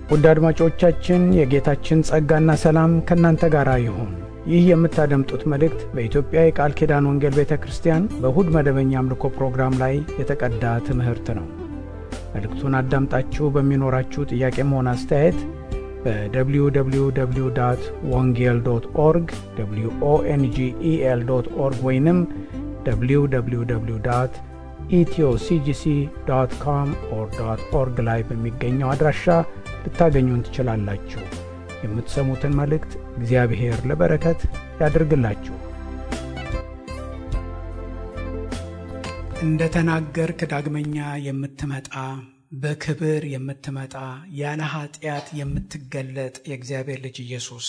ውድ አድማጮቻችን የጌታችን ጸጋና ሰላም ከናንተ ጋር ይሁን። ይህ የምታደምጡት መልእክት በኢትዮጵያ የቃል ኪዳን ወንጌል ቤተክርስቲያን በእሁድ መደበኛ አምልኮ ፕሮግራም ላይ የተቀዳ ትምህርት ነው። መልእክቱን አዳምጣችሁ በሚኖራችሁ ጥያቄም ሆነ አስተያየት በwww.wongel.org wongel.org ወይንም www.ethioCGC.com/org ላይ በሚገኘው አድራሻ ልታገኙን ትችላላችሁ። የምትሰሙትን መልእክት እግዚአብሔር ለበረከት ያድርግላችሁ። እንደተናገርክ ዳግመኛ የምትመጣ በክብር የምትመጣ ያለ ኃጢአት የምትገለጥ የእግዚአብሔር ልጅ ኢየሱስ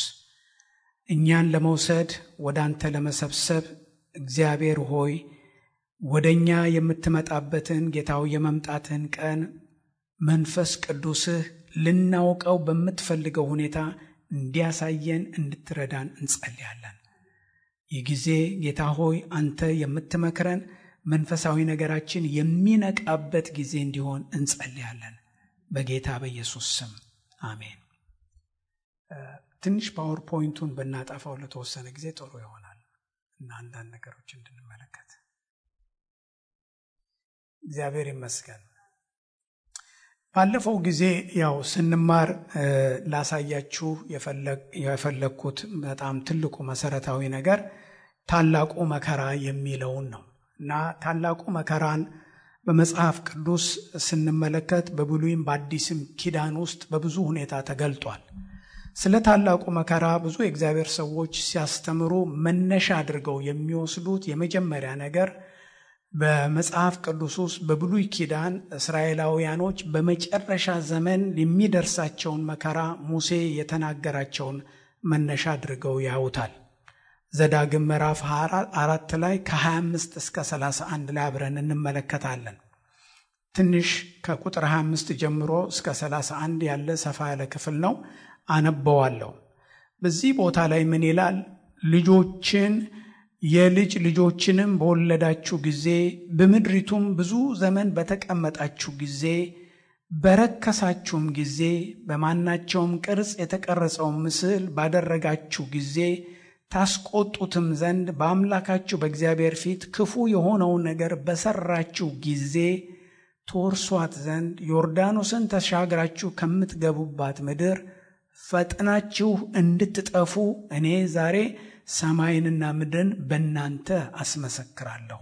እኛን ለመውሰድ ወደ አንተ ለመሰብሰብ እግዚአብሔር ሆይ ወደኛ የምትመጣበትን ጌታው የመምጣትን ቀን መንፈስ ቅዱስህ ልናውቀው በምትፈልገው ሁኔታ እንዲያሳየን እንድትረዳን እንጸልያለን። ይህ ጊዜ ጌታ ሆይ አንተ የምትመክረን መንፈሳዊ ነገራችን የሚነቃበት ጊዜ እንዲሆን እንጸልያለን። በጌታ በኢየሱስ ስም አሜን። ትንሽ ፓወርፖይንቱን ብናጠፋው ለተወሰነ ጊዜ ጥሩ ይሆናል እና አንዳንድ ነገሮች እንድንመለከት። እግዚአብሔር ይመስገን። ባለፈው ጊዜ ያው ስንማር ላሳያችሁ የፈለኩት በጣም ትልቁ መሰረታዊ ነገር ታላቁ መከራ የሚለውን ነው እና ታላቁ መከራን በመጽሐፍ ቅዱስ ስንመለከት በብሉይም በአዲስም ኪዳን ውስጥ በብዙ ሁኔታ ተገልጧል። ስለ ታላቁ መከራ ብዙ የእግዚአብሔር ሰዎች ሲያስተምሩ መነሻ አድርገው የሚወስዱት የመጀመሪያ ነገር በመጽሐፍ ቅዱስ ውስጥ በብሉይ ኪዳን እስራኤላውያኖች በመጨረሻ ዘመን የሚደርሳቸውን መከራ ሙሴ የተናገራቸውን መነሻ አድርገው ያውታል። ዘዳግም ምዕራፍ 4 ላይ ከ25 እስከ 31 ላይ አብረን እንመለከታለን። ትንሽ ከቁጥር 25 ጀምሮ እስከ 31 ያለ ሰፋ ያለ ክፍል ነው፣ አነበዋለሁ። በዚህ ቦታ ላይ ምን ይላል? ልጆችን የልጅ ልጆችንም በወለዳችሁ ጊዜ በምድሪቱም ብዙ ዘመን በተቀመጣችሁ ጊዜ በረከሳችሁም ጊዜ በማናቸውም ቅርጽ የተቀረጸውን ምስል ባደረጋችሁ ጊዜ ታስቆጡትም ዘንድ በአምላካችሁ በእግዚአብሔር ፊት ክፉ የሆነውን ነገር በሰራችሁ ጊዜ ትወርሷት ዘንድ ዮርዳኖስን ተሻግራችሁ ከምትገቡባት ምድር ፈጥናችሁ እንድትጠፉ እኔ ዛሬ ሰማይንና ምድርን በእናንተ አስመሰክራለሁ።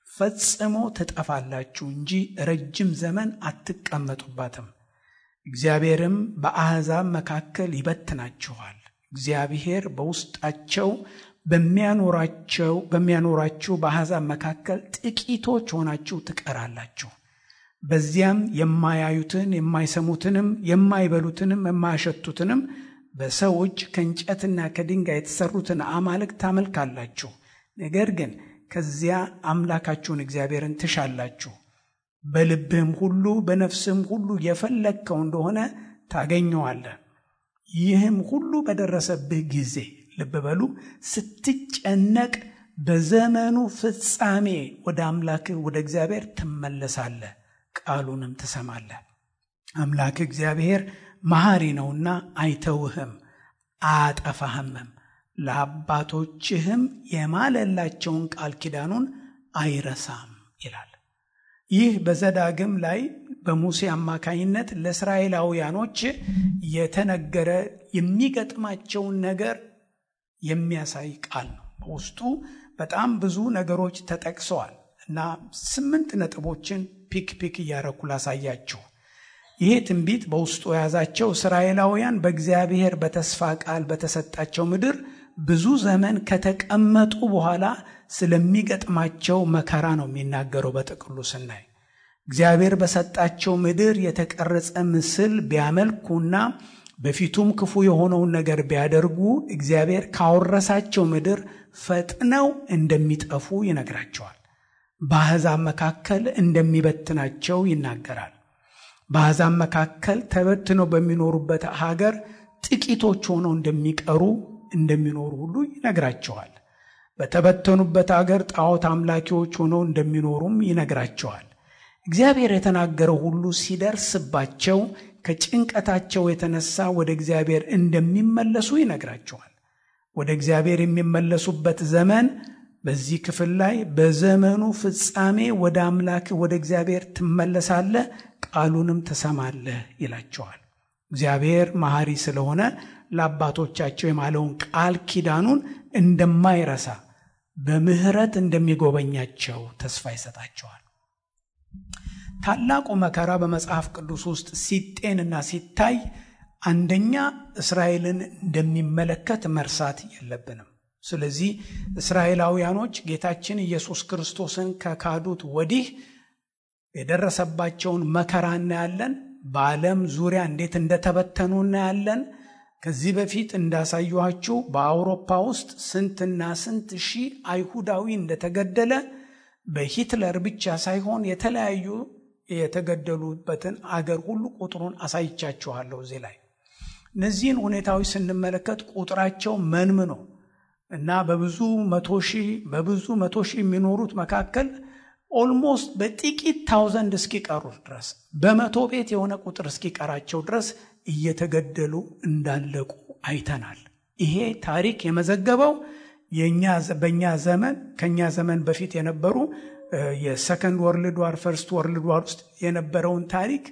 ፈጽሞ ትጠፋላችሁ እንጂ ረጅም ዘመን አትቀመጡባትም። እግዚአብሔርም በአሕዛብ መካከል ይበትናችኋል። እግዚአብሔር በውስጣቸው በሚያኖራችሁ በአሕዛብ መካከል ጥቂቶች ሆናችሁ ትቀራላችሁ። በዚያም የማያዩትን የማይሰሙትንም የማይበሉትንም የማያሸቱትንም በሰው እጅ ከእንጨትና ከድንጋይ የተሰሩትን አማልክት ታመልካላችሁ። ነገር ግን ከዚያ አምላካችሁን እግዚአብሔርን ትሻላችሁ። በልብህም ሁሉ በነፍስህም ሁሉ የፈለግከው እንደሆነ ታገኘዋለህ። ይህም ሁሉ በደረሰብህ ጊዜ ልብ በሉ፣ ስትጨነቅ በዘመኑ ፍጻሜ ወደ አምላክህ ወደ እግዚአብሔር ትመለሳለህ፣ ቃሉንም ትሰማለህ። አምላክ እግዚአብሔር መሐሪ ነውና አይተውህም አያጠፋህምም፣ ለአባቶችህም የማለላቸውን ቃል ኪዳኑን አይረሳም ይላል። ይህ በዘዳግም ላይ በሙሴ አማካይነት ለእስራኤላውያኖች የተነገረ የሚገጥማቸውን ነገር የሚያሳይ ቃል ነው። በውስጡ በጣም ብዙ ነገሮች ተጠቅሰዋል እና 8 ነጥቦችን ፒክ እያረኩ ላሳያችሁ። ይሄ ትንቢት በውስጡ የያዛቸው እስራኤላውያን በእግዚአብሔር በተስፋ ቃል በተሰጣቸው ምድር ብዙ ዘመን ከተቀመጡ በኋላ ስለሚገጥማቸው መከራ ነው የሚናገረው። በጥቅሉ ስናይ እግዚአብሔር በሰጣቸው ምድር የተቀረጸ ምስል ቢያመልኩና በፊቱም ክፉ የሆነውን ነገር ቢያደርጉ እግዚአብሔር ካወረሳቸው ምድር ፈጥነው እንደሚጠፉ ይነግራቸዋል። በአሕዛብ መካከል እንደሚበትናቸው ይናገራል። በአሕዛብ መካከል ተበትነው በሚኖሩበት ሀገር ጥቂቶች ሆነው እንደሚኖሩ ሁሉ ይነግራቸዋል። በተበተኑበት ሀገር ጣዖት አምላኪዎች ሆነው እንደሚኖሩም ይነግራቸዋል። እግዚአብሔር የተናገረው ሁሉ ሲደርስባቸው ከጭንቀታቸው የተነሳ ወደ እግዚአብሔር እንደሚመለሱ ይነግራቸዋል። ወደ እግዚአብሔር የሚመለሱበት ዘመን በዚህ ክፍል ላይ በዘመኑ ፍጻሜ ወደ አምላክ ወደ እግዚአብሔር ትመለሳለህ፣ ቃሉንም ትሰማለህ ይላቸዋል። እግዚአብሔር መሐሪ ስለሆነ ለአባቶቻቸው የማለውን ቃል ኪዳኑን እንደማይረሳ በምህረት እንደሚጎበኛቸው ተስፋ ይሰጣቸዋል። ታላቁ መከራ በመጽሐፍ ቅዱስ ውስጥ ሲጤንና ሲታይ አንደኛ እስራኤልን እንደሚመለከት መርሳት የለብንም። ስለዚህ እስራኤላውያኖች ጌታችን ኢየሱስ ክርስቶስን ከካዱት ወዲህ የደረሰባቸውን መከራ እናያለን። በዓለም ዙሪያ እንዴት እንደተበተኑ እናያለን። ከዚህ በፊት እንዳሳየኋችሁ በአውሮፓ ውስጥ ስንትና ስንት ሺህ አይሁዳዊ እንደተገደለ በሂትለር ብቻ ሳይሆን የተለያዩ የተገደሉበትን አገር ሁሉ ቁጥሩን አሳይቻችኋለሁ። እዚህ ላይ እነዚህን ሁኔታዎች ስንመለከት ቁጥራቸው መንምኖ እና በብዙ መቶ ሺህ የሚኖሩት መካከል ኦልሞስት በጥቂት ታውዘንድ እስኪቀሩ ድረስ በመቶ ቤት የሆነ ቁጥር እስኪቀራቸው ድረስ እየተገደሉ እንዳለቁ አይተናል። ይሄ ታሪክ የመዘገበው በእኛ ዘመን ከኛ ዘመን በፊት የነበሩ የሰከንድ ወርልድ ዋር ፈርስት ወርልድ ዋር ውስጥ የነበረውን ታሪክ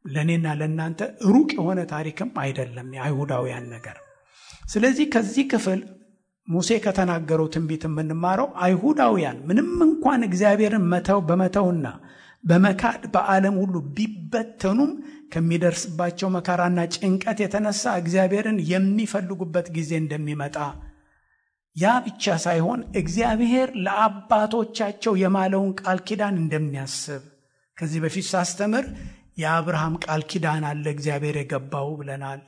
ለኔና ለናንተ ሩቅ የሆነ ታሪክም አይደለም የአይሁዳውያን ነገር። ስለዚህ ከዚህ ክፍል ሙሴ ከተናገረው ትንቢት የምንማረው አይሁዳውያን ምንም እንኳን እግዚአብሔርን በመተውና በመካድ በዓለም ሁሉ ቢበተኑም ከሚደርስባቸው መከራና ጭንቀት የተነሳ እግዚአብሔርን የሚፈልጉበት ጊዜ እንደሚመጣ፣ ያ ብቻ ሳይሆን እግዚአብሔር ለአባቶቻቸው የማለውን ቃል ኪዳን እንደሚያስብ ከዚህ በፊት ሳስተምር የአብርሃም ቃል ኪዳን አለ እግዚአብሔር የገባው ብለናል።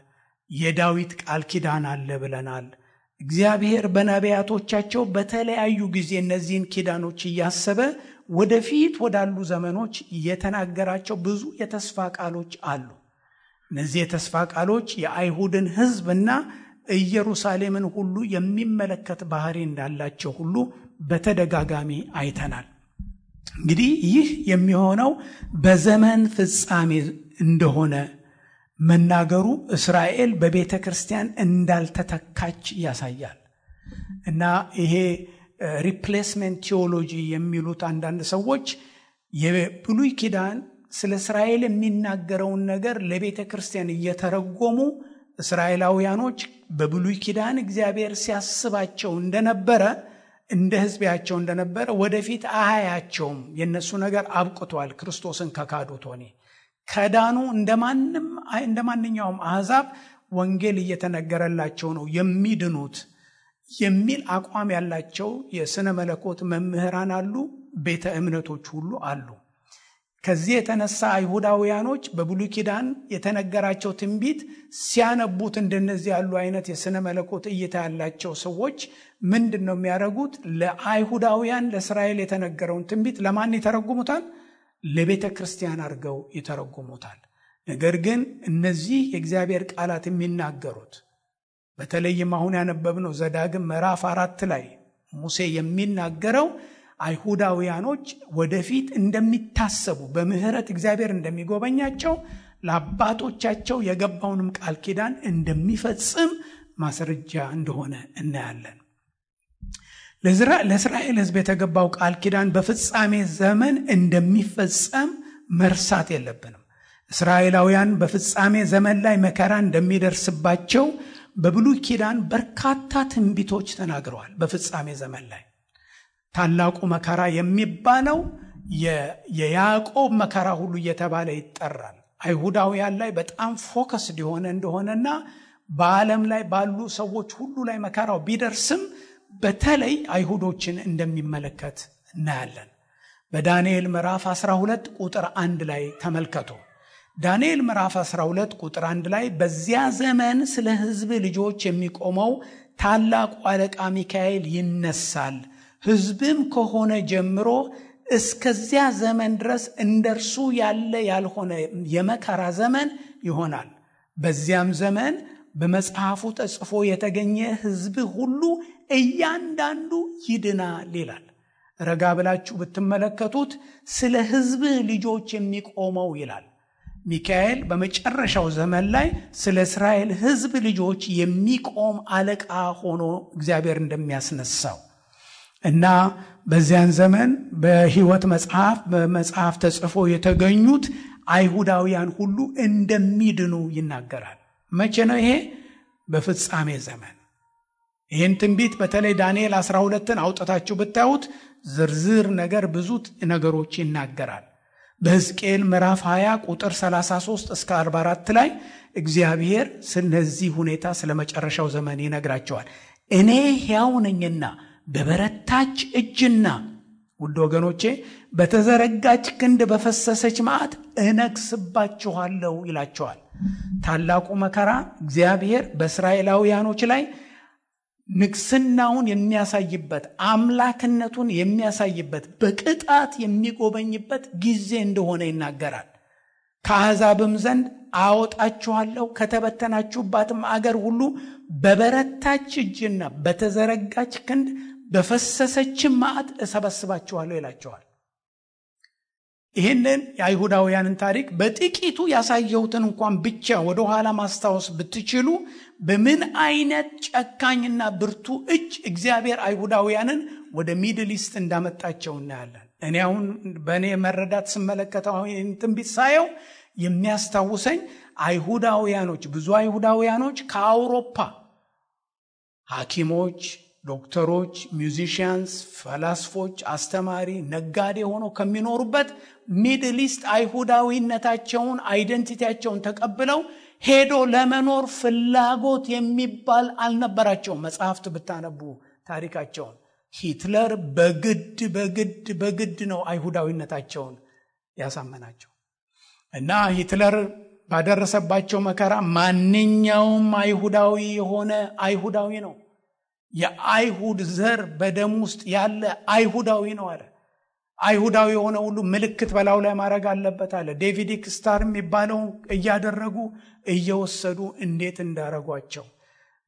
የዳዊት ቃል ኪዳን አለ ብለናል። እግዚአብሔር በነቢያቶቻቸው በተለያዩ ጊዜ እነዚህን ኪዳኖች እያሰበ ወደፊት ወዳሉ ዘመኖች የተናገራቸው ብዙ የተስፋ ቃሎች አሉ። እነዚህ የተስፋ ቃሎች የአይሁድን ሕዝብና ኢየሩሳሌምን ሁሉ የሚመለከት ባህሪ እንዳላቸው ሁሉ በተደጋጋሚ አይተናል። እንግዲህ ይህ የሚሆነው በዘመን ፍጻሜ እንደሆነ መናገሩ እስራኤል በቤተ ክርስቲያን እንዳልተተካች ያሳያል። እና ይሄ ሪፕሌስመንት ቲዮሎጂ የሚሉት አንዳንድ ሰዎች የብሉይ ኪዳን ስለ እስራኤል የሚናገረውን ነገር ለቤተ ክርስቲያን እየተረጎሙ እስራኤላውያኖች በብሉይ ኪዳን እግዚአብሔር ሲያስባቸው እንደነበረ እንደ ሕዝባቸው እንደነበረ ወደፊት አያያቸውም። የነሱ ነገር አብቅቷል። ክርስቶስን ከካዱት ሆኔ ከዳኑ እንደማንኛውም አሕዛብ ወንጌል እየተነገረላቸው ነው የሚድኑት የሚል አቋም ያላቸው የሥነ መለኮት መምህራን አሉ፣ ቤተ እምነቶች ሁሉ አሉ። ከዚህ የተነሳ አይሁዳውያኖች በብሉይ ኪዳን የተነገራቸው ትንቢት ሲያነቡት እንደነዚህ ያሉ አይነት የሥነ መለኮት እይታ ያላቸው ሰዎች ምንድነው የሚያደርጉት? ለአይሁዳውያን ለእስራኤል የተነገረውን ትንቢት ለማን ይተረጉሙታል? ለቤተ ክርስቲያን አድርገው ይተረጉሙታል። ነገር ግን እነዚህ የእግዚአብሔር ቃላት የሚናገሩት በተለይም አሁን ያነበብነው ዘዳግም ምዕራፍ 4 ላይ ሙሴ የሚናገረው አይሁዳውያኖች ወደፊት እንደሚታሰቡ በምህረት እግዚአብሔር እንደሚጎበኛቸው ለአባቶቻቸው የገባውንም ቃል ኪዳን እንደሚፈጽም ማስረጃ እንደሆነ እናያለን። ለእስራኤል ሕዝብ የተገባው ቃል ኪዳን በፍጻሜ ዘመን እንደሚፈጸም መርሳት የለብንም። እስራኤላውያን በፍጻሜ ዘመን ላይ መከራ እንደሚደርስባቸው በብሉይ ኪዳን በርካታ ትንቢቶች ተናግረዋል። በፍጻሜ ዘመን ላይ ታላቁ መከራ የሚባለው የያዕቆብ መከራ ሁሉ እየተባለ ይጠራል። አይሁዳውያን ላይ በጣም ፎከስድ የሆነ እንደሆነና በዓለም ላይ ባሉ ሰዎች ሁሉ ላይ መከራው ቢደርስም በተለይ አይሁዶችን እንደሚመለከት እናያለን። በዳንኤል ምዕራፍ 12 ቁጥር 1 ላይ ተመልከቱ። ዳንኤል ምዕራፍ 12 ቁጥር 1 ላይ በዚያ ዘመን ስለ ሕዝብ ልጆች የሚቆመው ታላቁ አለቃ ሚካኤል ይነሳል፣ ሕዝብም ከሆነ ጀምሮ እስከዚያ ዘመን ድረስ እንደርሱ ያለ ያልሆነ የመከራ ዘመን ይሆናል። በዚያም ዘመን በመጽሐፉ ተጽፎ የተገኘ ሕዝብ ሁሉ እያንዳንዱ ይድናል ይላል። ረጋ ብላችሁ ብትመለከቱት ስለ ሕዝብ ልጆች የሚቆመው ይላል። ሚካኤል በመጨረሻው ዘመን ላይ ስለ እስራኤል ሕዝብ ልጆች የሚቆም አለቃ ሆኖ እግዚአብሔር እንደሚያስነሳው እና በዚያን ዘመን በሕይወት በመጽሐፍ ተጽፎ የተገኙት አይሁዳውያን ሁሉ እንደሚድኑ ይናገራል። መቼ ነው ይሄ? በፍጻሜ ዘመን። ይህን ትንቢት በተለይ ዳንኤል 12ን አውጥታችሁ ብታዩት ዝርዝር ነገር ብዙ ነገሮች ይናገራል። በሕዝቅኤል ምዕራፍ 20 ቁጥር 33 እስከ 44 ላይ እግዚአብሔር ስለዚህ ሁኔታ ስለ መጨረሻው ዘመን ይነግራቸዋል። እኔ ሕያው ነኝና በበረታች እጅና ውድ ወገኖቼ በተዘረጋች ክንድ በፈሰሰች መዓት እነግስባችኋለሁ ይላቸዋል። ታላቁ መከራ እግዚአብሔር በእስራኤላውያኖች ላይ ንግስናውን የሚያሳይበት አምላክነቱን የሚያሳይበት በቅጣት የሚጎበኝበት ጊዜ እንደሆነ ይናገራል። ከአሕዛብም ዘንድ አወጣችኋለሁ ከተበተናችሁባትም አገር ሁሉ በበረታች እጅና በተዘረጋች ክንድ በፈሰሰችም መዓት እሰበስባችኋለሁ ይላቸዋል። ይህንን የአይሁዳውያንን ታሪክ በጥቂቱ ያሳየሁትን እንኳን ብቻ ወደ ኋላ ማስታወስ ብትችሉ በምን አይነት ጨካኝና ብርቱ እጅ እግዚአብሔር አይሁዳውያንን ወደ ሚድል ኢስት እንዳመጣቸው እናያለን። እኔ አሁን በእኔ መረዳት ስመለከተው ትንቢት ሳየው የሚያስታውሰኝ አይሁዳውያኖች ብዙ አይሁዳውያኖች ከአውሮፓ ሐኪሞች፣ ዶክተሮች፣ ሚውዚሽያንስ፣ ፈላስፎች፣ አስተማሪ፣ ነጋዴ ሆነው ከሚኖሩበት ሚድል ኢስት አይሁዳዊነታቸውን አይደንቲቲያቸውን ተቀብለው ሄዶ ለመኖር ፍላጎት የሚባል አልነበራቸውም። መጽሐፍት ብታነቡ ታሪካቸውን ሂትለር በግድ ነው አይሁዳዊነታቸውን ያሳመናቸው እና ሂትለር ባደረሰባቸው መከራ ማንኛውም አይሁዳዊ የሆነ አይሁዳዊ ነው፣ የአይሁድ ዘር በደም ውስጥ ያለ አይሁዳዊ ነው አለ። አይሁዳዊ የሆነ ሁሉ ምልክት በላዩ ላይ ማድረግ አለበት አለ። ዴቪድ ስታር የሚባለው እያደረጉ እየወሰዱ እንዴት እንዳረጓቸው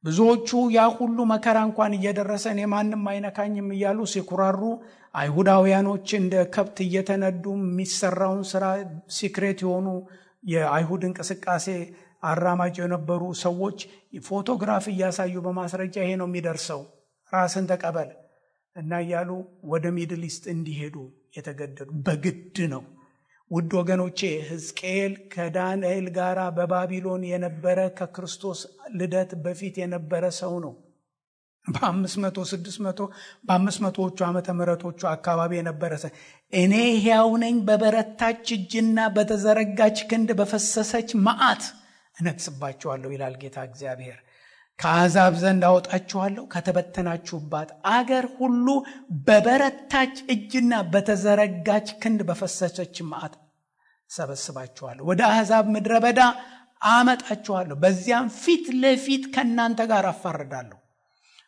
ብዙዎቹ ያ ሁሉ መከራ እንኳን እየደረሰ እኔ ማንም አይነካኝም እያሉ ሲኩራሩ አይሁዳውያኖች እንደ ከብት እየተነዱ የሚሰራውን ስራ ሲክሬት የሆኑ የአይሁድ እንቅስቃሴ አራማጅ የነበሩ ሰዎች ፎቶግራፍ እያሳዩ በማስረጃ ይሄ ነው የሚደርሰው ራስን ተቀበል እና እያሉ ወደ ሚድል ኢስት እንዲሄዱ የተገደዱ በግድ ነው። ውድ ወገኖቼ ሕዝቅኤል ከዳንኤል ጋር በባቢሎን የነበረ ከክርስቶስ ልደት በፊት የነበረ ሰው ነው። በ500ዎቹ ዓመተ ምህረቶቹ አካባቢ የነበረ ሰው እኔ ሕያው ነኝ በበረታች እጅና በተዘረጋች ክንድ በፈሰሰች መዓት እነግስባችኋለሁ ይላል ጌታ እግዚአብሔር። ከአሕዛብ ዘንድ አወጣችኋለሁ ከተበተናችሁባት አገር ሁሉ በበረታች እጅና በተዘረጋች ክንድ በፈሰሰች መዓት ሰበስባችኋለሁ። ወደ አሕዛብ ምድረ በዳ አመጣችኋለሁ፣ በዚያም ፊት ለፊት ከእናንተ ጋር አፋርዳለሁ።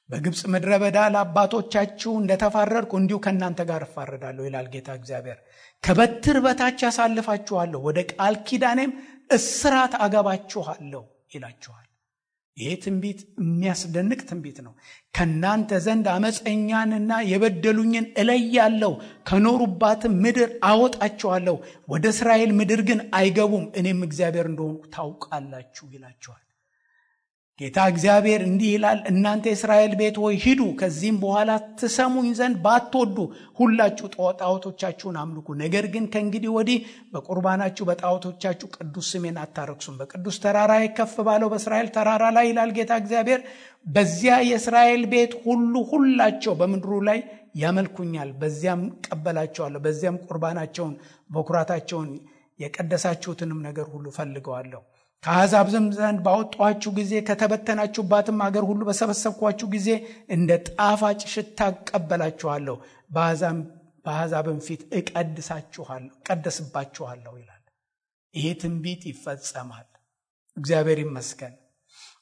በግብፅ ምድረ በዳ ለአባቶቻችሁ እንደተፋረድኩ እንዲሁ ከእናንተ ጋር እፋረዳለሁ ይላል ጌታ እግዚአብሔር። ከበትር በታች ያሳልፋችኋለሁ፣ ወደ ቃል ኪዳኔም እስራት አገባችኋለሁ ይላችኋል። ይሄ ትንቢት የሚያስደንቅ ትንቢት ነው። ከናንተ ዘንድ አመፀኛንና የበደሉኝን እለያለሁ፣ ከኖሩባትም ምድር አወጣቸዋለሁ፣ ወደ እስራኤል ምድር ግን አይገቡም፣ እኔም እግዚአብሔር እንደሆንኩ ታውቃላችሁ ይላችኋል። ጌታ እግዚአብሔር እንዲህ ይላል፣ እናንተ የእስራኤል ቤት ሆይ ሂዱ፣ ከዚህም በኋላ ትሰሙኝ ዘንድ ባትወዱ ሁላችሁ ጣዖቶቻችሁን አምልኩ። ነገር ግን ከእንግዲህ ወዲህ በቁርባናችሁ በጣዖቶቻችሁ ቅዱስ ስሜን አታረክሱም። በቅዱስ ተራራ ከፍ ባለው በእስራኤል ተራራ ላይ ይላል ጌታ እግዚአብሔር፣ በዚያ የእስራኤል ቤት ሁላቸው በምድሩ ላይ ያመልኩኛል፣ በዚያም ቀበላቸዋለሁ፣ በዚያም ቁርባናቸውን በኩራታቸውን የቀደሳችሁትንም ነገር ሁሉ ፈልገዋለሁ። ከአሕዛብ ዘንድ ባወጣኋችሁ ጊዜ ከተበተናችሁባትም አገር ሁሉ በሰበሰብኳችሁ ጊዜ እንደ ጣፋጭ ሽታ እቀበላችኋለሁ፣ በአሕዛብም ፊት እቀደስባችኋለሁ ይላል። ይሄ ትንቢት ይፈጸማል። እግዚአብሔር ይመስገን።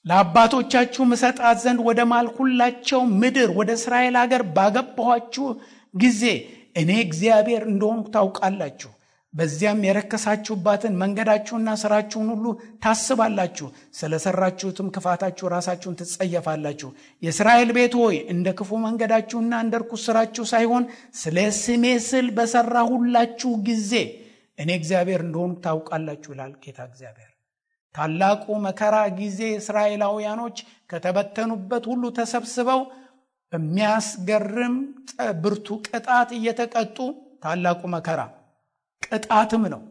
ለአባቶቻችሁ እሰጣት ዘንድ ወደ ማልሁላቸው ምድር ወደ እስራኤል ሀገር ባገባኋችሁ ጊዜ እኔ እግዚአብሔር እንደሆንኩ ታውቃላችሁ። በዚያም የረከሳችሁባትን መንገዳችሁና ስራችሁን ሁሉ ታስባላችሁ፣ ስለሰራችሁትም ክፋታችሁ ራሳችሁን ትጸየፋላችሁ። የእስራኤል ቤት ሆይ እንደ ክፉ መንገዳችሁና እንደ ርኩስ ስራችሁ ሳይሆን ስለ ስሜ ስል በሰራሁላችሁ ጊዜ እኔ እግዚአብሔር እንደሆንኩ ታውቃላችሁ ይላል ጌታ እግዚአብሔር። ታላቁ መከራ ጊዜ እስራኤላውያኖች ከተበተኑበት ሁሉ ተሰብስበው በሚያስገርም ብርቱ ቅጣት እየተቀጡ፣ ታላቁ መከራ ቅጣትም ነው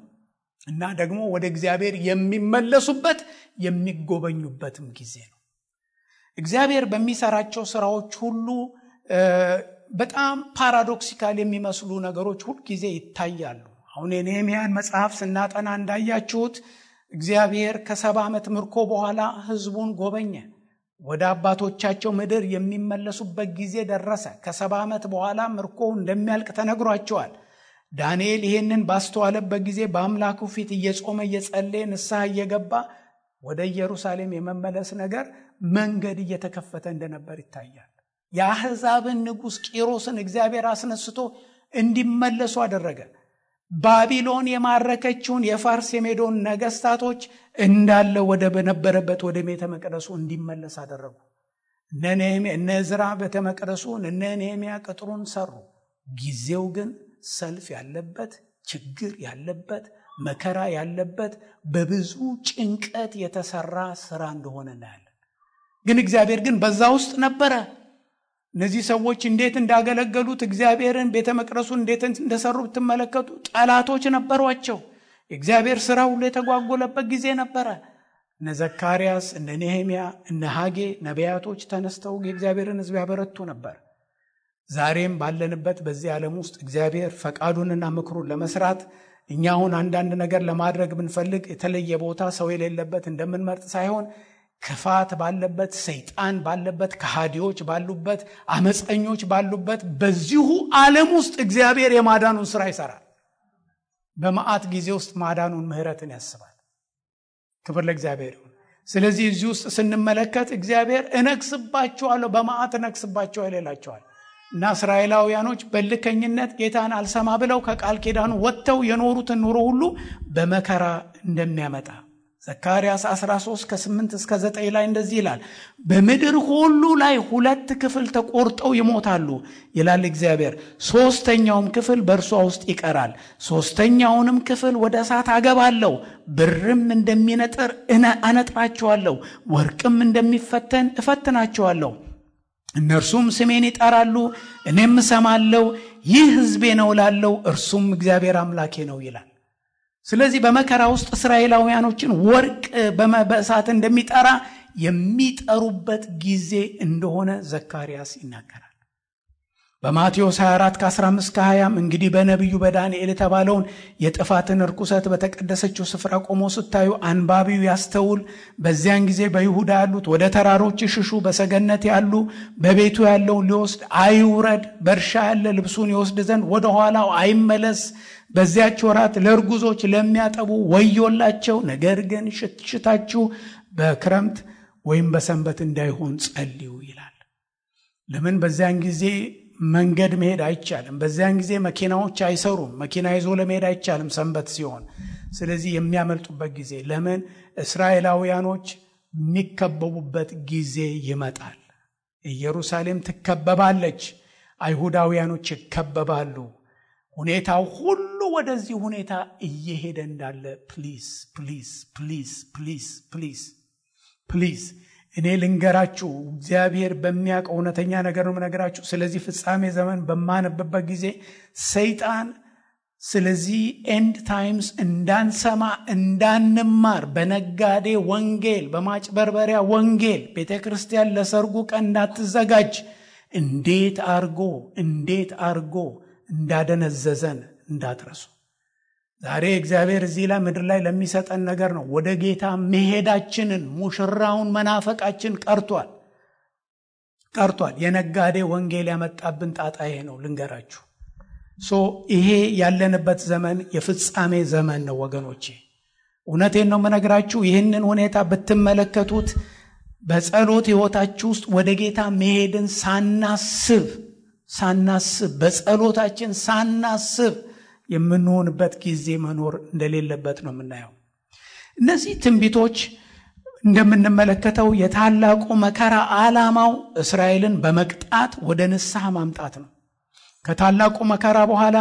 እና ደግሞ ወደ እግዚአብሔር የሚመለሱበት የሚጎበኙበትም ጊዜ ነው። እግዚአብሔር በሚሰራቸው ስራዎች ሁሉ በጣም ፓራዶክሲካል የሚመስሉ ነገሮች ሁሉ ጊዜ ይታያሉ። አሁን የነህምያን መጽሐፍ ስናጠና እንዳያችሁት እግዚአብሔር ከ70 ዓመት ምርኮ በኋላ ህዝቡን ጎበኘ። ወደ አባቶቻቸው ምድር የሚመለሱበት ጊዜ ደረሰ። ከ70 ዓመት በኋላ ምርኮ እንደሚያልቅ ተነግሯቸዋል። ዳንኤል ይሄንን ባስተዋለበት ጊዜ በአምላኩ ፊት እየጾመ እየጸለየ ንስሐ እየገባ ወደ ኢየሩሳሌም የመመለስ ነገር መንገድ እየተከፈተ እንደነበር ይታያል። የአሕዛብን ንጉሥ ቂሮስን እግዚአብሔር አስነስቶ እንዲመለሱ አደረገ። ባቢሎን የማረከችውን የፋርስ የሜዶን ነገስታቶች እንዳለ ወደ በነበረበት ወደ ቤተ መቅደሱ እንዲመለስ አደረጉ። እነ ዕዝራ ቤተ መቅደሱን፣ እነ ነህምያ ቅጥሩን ሰሩ። ጊዜው ግን ሰልፍ ያለበት፣ ችግር ያለበት፣ መከራ ያለበት፣ በብዙ ጭንቀት የተሰራ ስራ እንደሆነ እናያለን። ግን እግዚአብሔር ግን በዛ ውስጥ ነበረ። እነዚህ ሰዎች እንዴት እንዳገለገሉት እግዚአብሔርን ቤተ መቅደሱን እንዴት እንደሰሩ ብትመለከቱ ጠላቶች ነበሯቸው። የእግዚአብሔር ስራ ሁሉ የተጓጎለበት ጊዜ ነበረ። እነ ዘካርያስ፣ እነ ነህምያ፣ እነ ሐጌ ነቢያቶች ተነስተው የእግዚአብሔርን ሕዝብ ያበረቱ ነበር። ዛሬም ባለንበት በዚህ ዓለም ውስጥ እግዚአብሔር ፈቃዱንና ምክሩን ለመስራት እኛ አሁን አንዳንድ ነገር ለማድረግ ብንፈልግ የተለየ ቦታ ሰው የሌለበት እንደምንመርጥ ሳይሆን ክፋት ባለበት፣ ሰይጣን ባለበት፣ ከሃዲዎች ባሉበት፣ አመፀኞች ባሉበት በዚሁ ዓለም ውስጥ እግዚአብሔር የማዳኑን ስራ ይሰራል። በመዓት ጊዜ ውስጥ ማዳኑን ምህረትን ያስባል። ክብር ለእግዚአብሔር ይሁን። ስለዚህ እዚህ ውስጥ ስንመለከት እግዚአብሔር እነግስባቸዋለሁ፣ በመዓት እነግስባቸዋለሁ ይላቸዋል እና እስራኤላውያኖች በልከኝነት ጌታን አልሰማ ብለው ከቃል ኪዳኑ ወጥተው የኖሩትን ኑሮ ሁሉ በመከራ እንደሚያመጣ ዘካርያስ 13 ከ8 እስከ 9 ላይ እንደዚህ ይላል። በምድር ሁሉ ላይ 2 ክፍል ተቆርጠው ይሞታሉ ይላል እግዚአብሔር። 3ኛውም ክፍል በእርሷ ውስጥ ይቀራል። 3ኛውንም ክፍል ወደ እሳት አገባለሁ፣ ብርም እንደሚነጥር አነጥራቸዋለሁ፣ ወርቅም እንደሚፈተን እፈትናቸዋለሁ። እነርሱም ስሜን ይጠራሉ፣ እኔም እሰማለሁ። ይህ ሕዝቤ ነው እላለሁ፣ እርሱም እግዚአብሔር አምላኬ ነው ይላል። ስለዚህ በመከራ ውስጥ እስራኤላውያኖችን ወርቅ በእሳት እንደሚጠራ የሚጠሩበት ጊዜ እንደሆነ ዘካርያስ ይናገራል። በማቴዎስ 24 ከ15 ከ20 እንግዲህ በነቢዩ በዳንኤል የተባለውን የጥፋትን ርኩሰት በተቀደሰችው ስፍራ ቆሞ ስታዩ አንባቢው ያስተውል። በዚያን ጊዜ በይሁዳ ያሉት ወደ ተራሮች ይሽሹ፣ በሰገነት ያሉ በቤቱ ያለውን ሊወስድ አይውረድ፣ በእርሻ ያለ ልብሱን ይወስድ ዘንድ ወደ ኋላው አይመለስ። በዚያች ወራት ለእርጉዞች ለሚያጠቡ ወዮላቸው። ነገር ግን ሽታችሁ በክረምት ወይም በሰንበት እንዳይሆን ጸልዩ ይላል። ለምን? በዚያን ጊዜ መንገድ መሄድ አይቻልም። በዚያን ጊዜ መኪናዎች አይሰሩም። መኪና ይዞ ለመሄድ አይቻልም ሰንበት ሲሆን። ስለዚህ የሚያመልጡበት ጊዜ፣ ለምን? እስራኤላውያኖች የሚከበቡበት ጊዜ ይመጣል። ኢየሩሳሌም ትከበባለች፣ አይሁዳውያኖች ይከበባሉ። ሁኔታው ሁሉ ወደዚህ ሁኔታ እየሄደ እንዳለ ፕሊዝ ፕሊዝ ፕሊዝ ፕሊዝ ፕሊዝ ፕሊዝ እኔ ልንገራችሁ፣ እግዚአብሔር በሚያውቀው እውነተኛ ነገር ነው የምነግራችሁ። ስለዚህ ፍጻሜ ዘመን በማነብበት ጊዜ ሰይጣን ስለዚህ ኤንድ ታይምስ እንዳንሰማ እንዳንማር በነጋዴ ወንጌል፣ በማጭበርበሪያ ወንጌል ቤተክርስቲያን ለሰርጉ ቀን እንዳትዘጋጅ እንዴት አርጎ እንዳደነዘዘን እንዳትረሱ። ዛሬ እግዚአብሔር እዚህ ላይ ምድር ላይ ለሚሰጠን ነገር ነው። ወደ ጌታ መሄዳችንን ሙሽራውን መናፈቃችን ቀርቷል። የነጋዴ ወንጌል ያመጣብን ጣጣ ይሄ ነው ልንገራችሁ። ይሄ ያለንበት ዘመን የፍጻሜ ዘመን ነው ወገኖቼ። እውነቴን ነው የምነግራችሁ። ይህንን ሁኔታ ብትመለከቱት በጸሎት ሕይወታችሁ ውስጥ ወደ ጌታ መሄድን ሳናስብ በጸሎታችን ሳናስብ የምንሆንበት ጊዜ መኖር እንደሌለበት ነው የምናየው። እነዚህ ትንቢቶች እንደምንመለከተው የታላቁ መከራ ዓላማው እስራኤልን በመቅጣት ወደ ንስሐ ማምጣት ነው። ከታላቁ መከራ በኋላ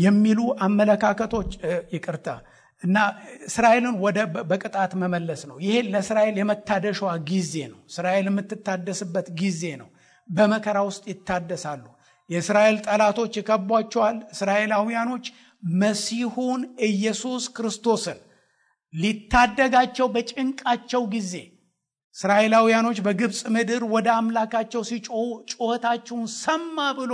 የሚሉ አመለካከቶች ይቅርታ እና እስራኤልን ወደ በቅጣት መመለስ ነው። ይሄ ለእስራኤል የመታደሻዋ ጊዜ ነው። እስራኤል የምትታደስበት ጊዜ ነው። በመከራ ውስጥ ይታደሳሉ። የእስራኤል ጠላቶች ይከቧቸዋል። እስራኤላውያኖች መሲሁን ኢየሱስ ክርስቶስን ሊታደጋቸው በጭንቃቸው ጊዜ እስራኤላውያኖች በግብፅ ምድር ወደ አምላካቸው ሲጮሁ ጩኸታቸውን ሰማ ብሎ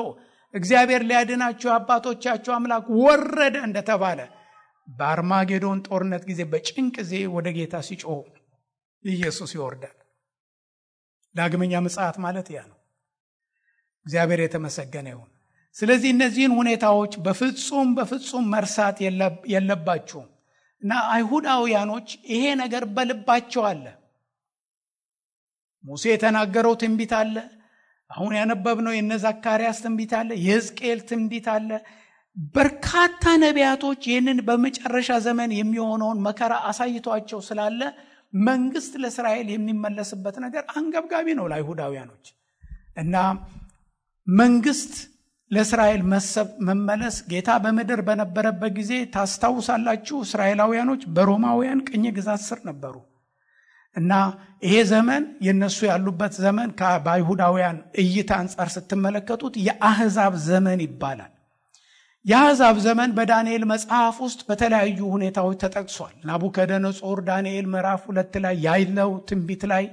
እግዚአብሔር ሊያድናቸው አባቶቻቸው አምላክ ወረደ እንደተባለ በአርማጌዶን ጦርነት ጊዜ በጭንቅ ጊዜ ወደ ጌታ ሲጮሁ ኢየሱስ ይወርዳል። ዳግመኛ ምጽአት ማለት ያ ነው። እግዚአብሔር የተመሰገነ ይሁን። ስለዚህ እነዚህን ሁኔታዎች በፍጹም መርሳት የለባችሁም እና አይሁዳውያኖች ይሄ ነገር በልባቸው አለ። ሙሴ የተናገረው ትንቢት አለ። አሁን ያነበብነው የነ ዘካርያስ ትንቢት አለ። የሕዝቅኤል ትንቢት አለ። በርካታ ነቢያቶች ይህንን በመጨረሻ ዘመን የሚሆነውን መከራ አሳይቷቸው ስላለ መንግስት ለእስራኤል የሚመለስበት ነገር አንገብጋቢ ነው ለአይሁዳውያኖች እና መንግስት ለእስራኤል መመለስ ጌታ በምድር በነበረበት ጊዜ ታስታውሳላችሁ። እስራኤላውያኖች በሮማውያን ቅኝ ግዛት ስር ነበሩ እና ይሄ ዘመን የነሱ ያሉበት ዘመን በአይሁዳውያን እይታ አንጻር ስትመለከቱት የአህዛብ ዘመን ይባላል። የአህዛብ ዘመን በዳንኤል መጽሐፍ ውስጥ በተለያዩ ሁኔታዎች ተጠቅሷል። ናቡከደነጾር ዳንኤል ምዕራፍ 2 ላይ ያለው ትንቢት ላይ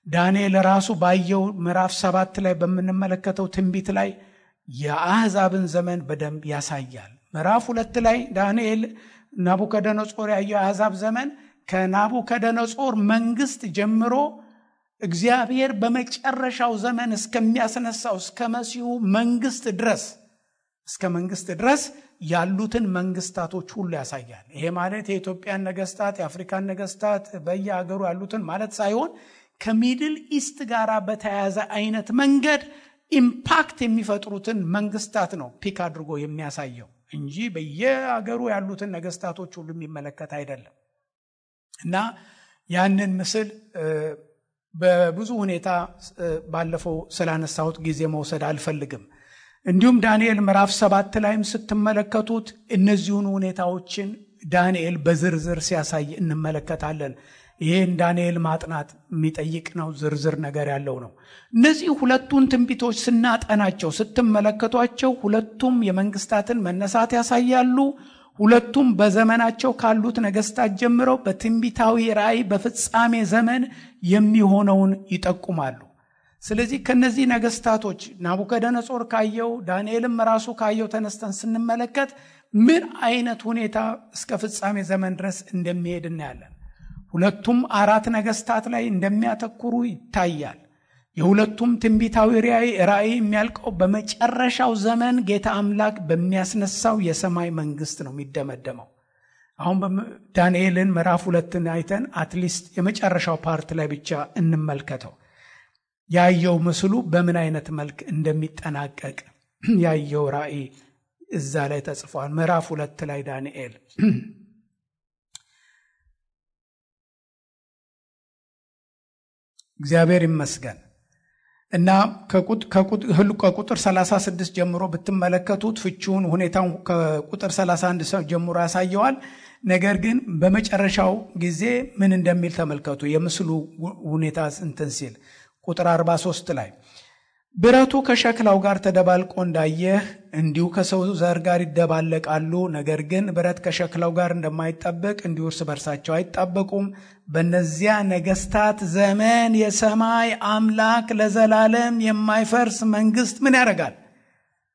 ዳንኤል ራሱ ባየው ምዕራፍ 7 ላይ በምንመለከተው ትንቢት ላይ የአህዛብን ዘመን በደንብ ያሳያል። ምዕራፍ 2 ላይ ዳንኤል ናቡከደነጾር ያየው የአህዛብ ዘመን ከናቡከደነጾር መንግስት ጀምሮ እግዚአብሔር በመጨረሻው ዘመን እስከሚያስነሳው እስከ መሲሁ መንግስት ድረስ ያሉትን መንግስታቶች ሁሉ ያሳያል። ይሄ ማለት የኢትዮጵያን ነገስታት፣ የአፍሪካን ነገስታት በየሀገሩ ያሉትን ማለት ሳይሆን ከሚድል ኢስት ጋር በተያያዘ አይነት መንገድ ኢምፓክት የሚፈጥሩትን መንግስታት ነው ፒክ አድርጎ የሚያሳየው እንጂ በየሀገሩ ያሉትን ነገስታቶች ሁሉ የሚመለከት አይደለም። እና ያንን ምስል በብዙ ሁኔታ ባለፈው ስላነሳሁት ጊዜ መውሰድ አልፈልግም። እንዲሁም ዳንኤል ምዕራፍ 7 ላይም ስትመለከቱት እነዚሁን ሁኔታዎችን ዳንኤል በዝርዝር ሲያሳይ እንመለከታለን። ይሄን ዳንኤል ማጥናት የሚጠይቅ ነው። ዝርዝር ነገር ያለው ነው። እነዚህ ሁለቱን ትንቢቶች ስናጠናቸው ስትመለከቷቸው ሁለቱም የመንግስታትን መነሳት ያሳያሉ። ሁለቱም በዘመናቸው ካሉት ነገስታት ጀምረው በትንቢታዊ ራእይ በፍጻሜ ዘመን የሚሆነውን ይጠቁማሉ። ስለዚህ ከነዚህ ነገስታቶች ናቡከደነጾር ካየው ዳንኤልም ራሱ ካየው ተነስተን ስንመለከት ምን አይነት ሁኔታ እስከ ፍጻሜ ዘመን ድረስ እንደሚሄድ እናያለን። ሁለቱም 4 ነገስታት ላይ እንደሚያተኩሩ ይታያል። የሁለቱም ትንቢታዊ ራእይ የሚያልቀው በመጨረሻው ዘመን ጌታ አምላክ በሚያስነሳው የሰማይ መንግስት ነው የሚደመደመው። አሁን ዳንኤልን ምዕራፍ 2 አይተን አትሊስት የመጨረሻው ፓርት ላይ ብቻ እንመልከተው። ያየው ምስሉ በምን አይነት መልክ እንደሚጠናቀቅ ያየው ራእይ እዛ ላይ ተጽፏል። ምዕራፍ 2 ላይ ዳንኤል እግዚአብሔር ይመስገን እና ከቁጥር 36 ጀምሮ ብትመለከቱት ፍቺውን ሁኔታውን ከቁጥር 31 ጀምሮ ያሳየዋል። ነገር ግን በመጨረሻው ጊዜ ምን እንደሚል ተመልከቱ። የምስሉ ሁኔታ እንትን ሲል ቁጥር 43 ላይ ብረቱ ከሸክላው ጋር ተደባልቆ እንዳየህ እንዲሁ ከሰው ዘር ጋር ይደባለቃሉ። ነገር ግን ብረት ከሸክላው ጋር እንደማይጣበቅ እንዲሁ እርስ በርሳቸው አይጣበቁም። በእነዚያ ነገስታት ዘመን የሰማይ አምላክ ለዘላለም የማይፈርስ መንግስት ምን ያደርጋል?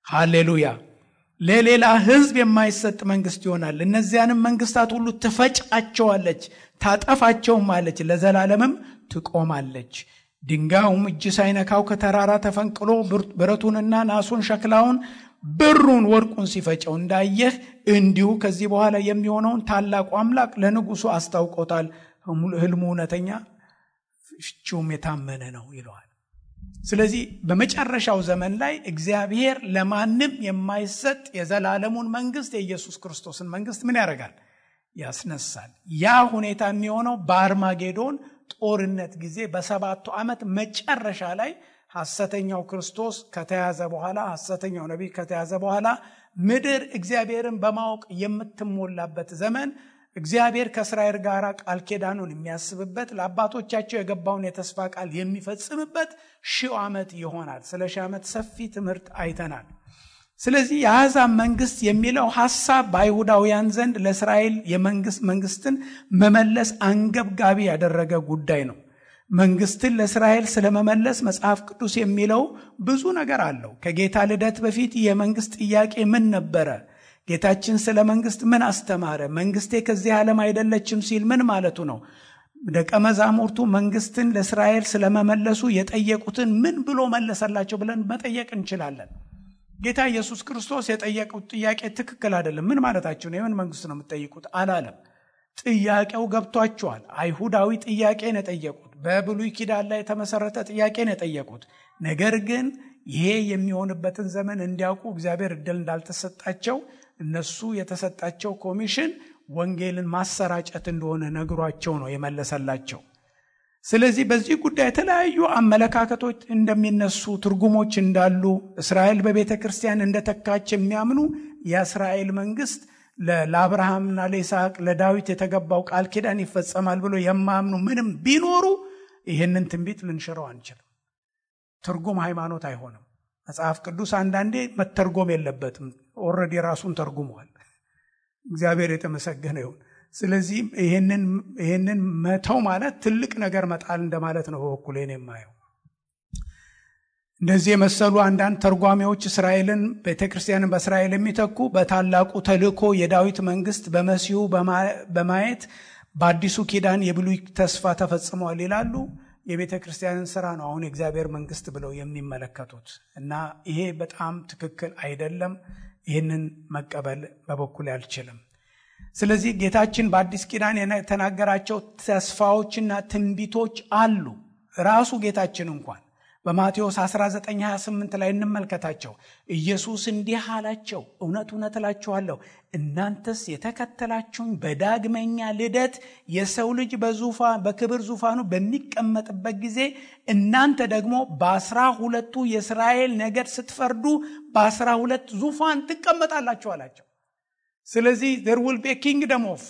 ሃሌሉያ! ለሌላ ህዝብ የማይሰጥ መንግስት ይሆናል። እነዚያንም መንግስታት ሁሉ ትፈጫቸዋለች፣ ታጠፋቸውም አለች፣ ለዘላለምም ትቆማለች። ድንጋዩም እጅ ሳይነካው ከተራራ ተፈንቅሎ ብረቱንና ናሱን ሸክላውን ብሩን ወርቁን ሲፈጨው እንዳየህ እንዲሁ ከዚህ በኋላ የሚሆነውን ታላቁ አምላክ ለንጉሱ አስታውቆታል። ህልሙ እውነተኛ ፍቺውም የታመነ ነው ይለዋል። ስለዚህ በመጨረሻው ዘመን ላይ እግዚአብሔር ለማንም የማይሰጥ የዘላለሙን መንግስት የኢየሱስ ክርስቶስን መንግስት ምን ያደርጋል? ያስነሳል። ያ ሁኔታ የሚሆነው በአርማጌዶን ጦርነት ጊዜ በ7 ዓመት መጨረሻ ላይ ሐሰተኛው ክርስቶስ ከተያዘ በኋላ ሐሰተኛው ነቢይ ከተያዘ በኋላ ምድር እግዚአብሔርን በማወቅ የምትሞላበት ዘመን፣ እግዚአብሔር ከእስራኤል ጋር ቃል ኪዳኑን የሚያስብበት፣ ለአባቶቻቸው የገባውን የተስፋ ቃል የሚፈጽምበት 1000 ዓመት ይሆናል። ስለ 1000 ዓመት ሰፊ ትምህርት አይተናል። ስለዚህ የአሕዛብ መንግስት የሚለው ሐሳብ በአይሁዳውያን ዘንድ ለእስራኤል መንግስትን መመለስ አንገብጋቢ ያደረገ ጉዳይ ነው። መንግስትን ለእስራኤል ስለመመለስ መጽሐፍ ቅዱስ የሚለው ብዙ ነገር አለው። ከጌታ ልደት በፊት የመንግስት ጥያቄ ምን ነበረ? ጌታችን ስለ መንግስት ምን አስተማረ? መንግስቴ ከዚህ ዓለም አይደለችም ሲል ምን ማለቱ ነው? ደቀ መዛሙርቱ መንግስትን ለእስራኤል ስለመመለሱ የጠየቁትን ምን ብሎ መለሰላቸው ብለን መጠየቅ እንችላለን። ጌታ ኢየሱስ ክርስቶስ የጠየቁት ጥያቄ ትክክል አይደለም። ምን ማለታቸው ነው? የምን መንግስት ነው የምትጠይቁት አላለም። ጥያቄው ገብቷቸዋል። አይሁዳዊ ጥያቄ ነው የጠየቁት። በብሉይ ኪዳን ላይ የተመሰረተ ጥያቄ ነው የጠየቁት። ነገር ግን ይሄ የሚሆንበትን ዘመን እንዲያውቁ እግዚአብሔር እድል እንዳልተሰጣቸው፣ እነሱ የተሰጣቸው ኮሚሽን ወንጌልን ማሰራጨት እንደሆነ ነግሯቸው ነው የመለሰላቸው። ስለዚህ በዚህ ጉዳይ የተለያዩ አመለካከቶች እንደሚነሱ፣ ትርጉሞች እንዳሉ፣ እስራኤል በቤተ ክርስቲያን እንደተካች የሚያምኑ የእስራኤል መንግስት ለአብርሃምና ለይስሐቅ ለዳዊት የተገባው ቃል ኪዳን ይፈጸማል ብሎ የማያምኑ ምንም ቢኖሩ ይህንን ትንቢት ልንሽረው አንችልም። ትርጉም ሃይማኖት አይሆንም። መጽሐፍ ቅዱስ አንዳንዴ መተርጎም የለበትም። ኦልሬዲ ራሱን ተርጉሟል። እግዚአብሔር የተመሰገነ ይሁን። ስለዚህ ይህንን መተው ማለት ትልቅ ነገር መጣል እንደማለት ነው። በበኩሌ ነው የማየው። እንደዚህ የመሰሉ አንዳንድ ተርጓሚዎች እስራኤልን ቤተክርስቲያንን በእስራኤል የሚተኩ በታላቁ ተልእኮ የዳዊት መንግስት በመሲሁ በማየት በአዲሱ ኪዳን የብሉይ ተስፋ ተፈጽሟል ይላሉ። የቤተ ክርስቲያንን ስራ ነው አሁን የእግዚአብሔር መንግስት ብለው የሚመለከቱት እና ይሄ በጣም ትክክል አይደለም። ይህንን መቀበል በበኩሌ አልችልም። ስለዚህ ጌታችን በአዲስ ኪዳን የተናገራቸው ተስፋዎችና ትንቢቶች አሉ። ራሱ ጌታችን እንኳን በማቴዎስ 19:28 ላይ እንመልከታቸው። ኢየሱስ እንዲህ አላቸው፣ እውነት እውነት እላችኋለሁ እናንተስ የተከተላችሁኝ በዳግመኛ ልደት የሰው ልጅ በክብር ዙፋኑ በሚቀመጥበት ጊዜ እናንተ ደግሞ በ12ቱ የእስራኤል ነገድ ስትፈርዱ በ12 ዙፋን ትቀመጣላችሁ አላቸው። ስለዚህ there will be a kingdom of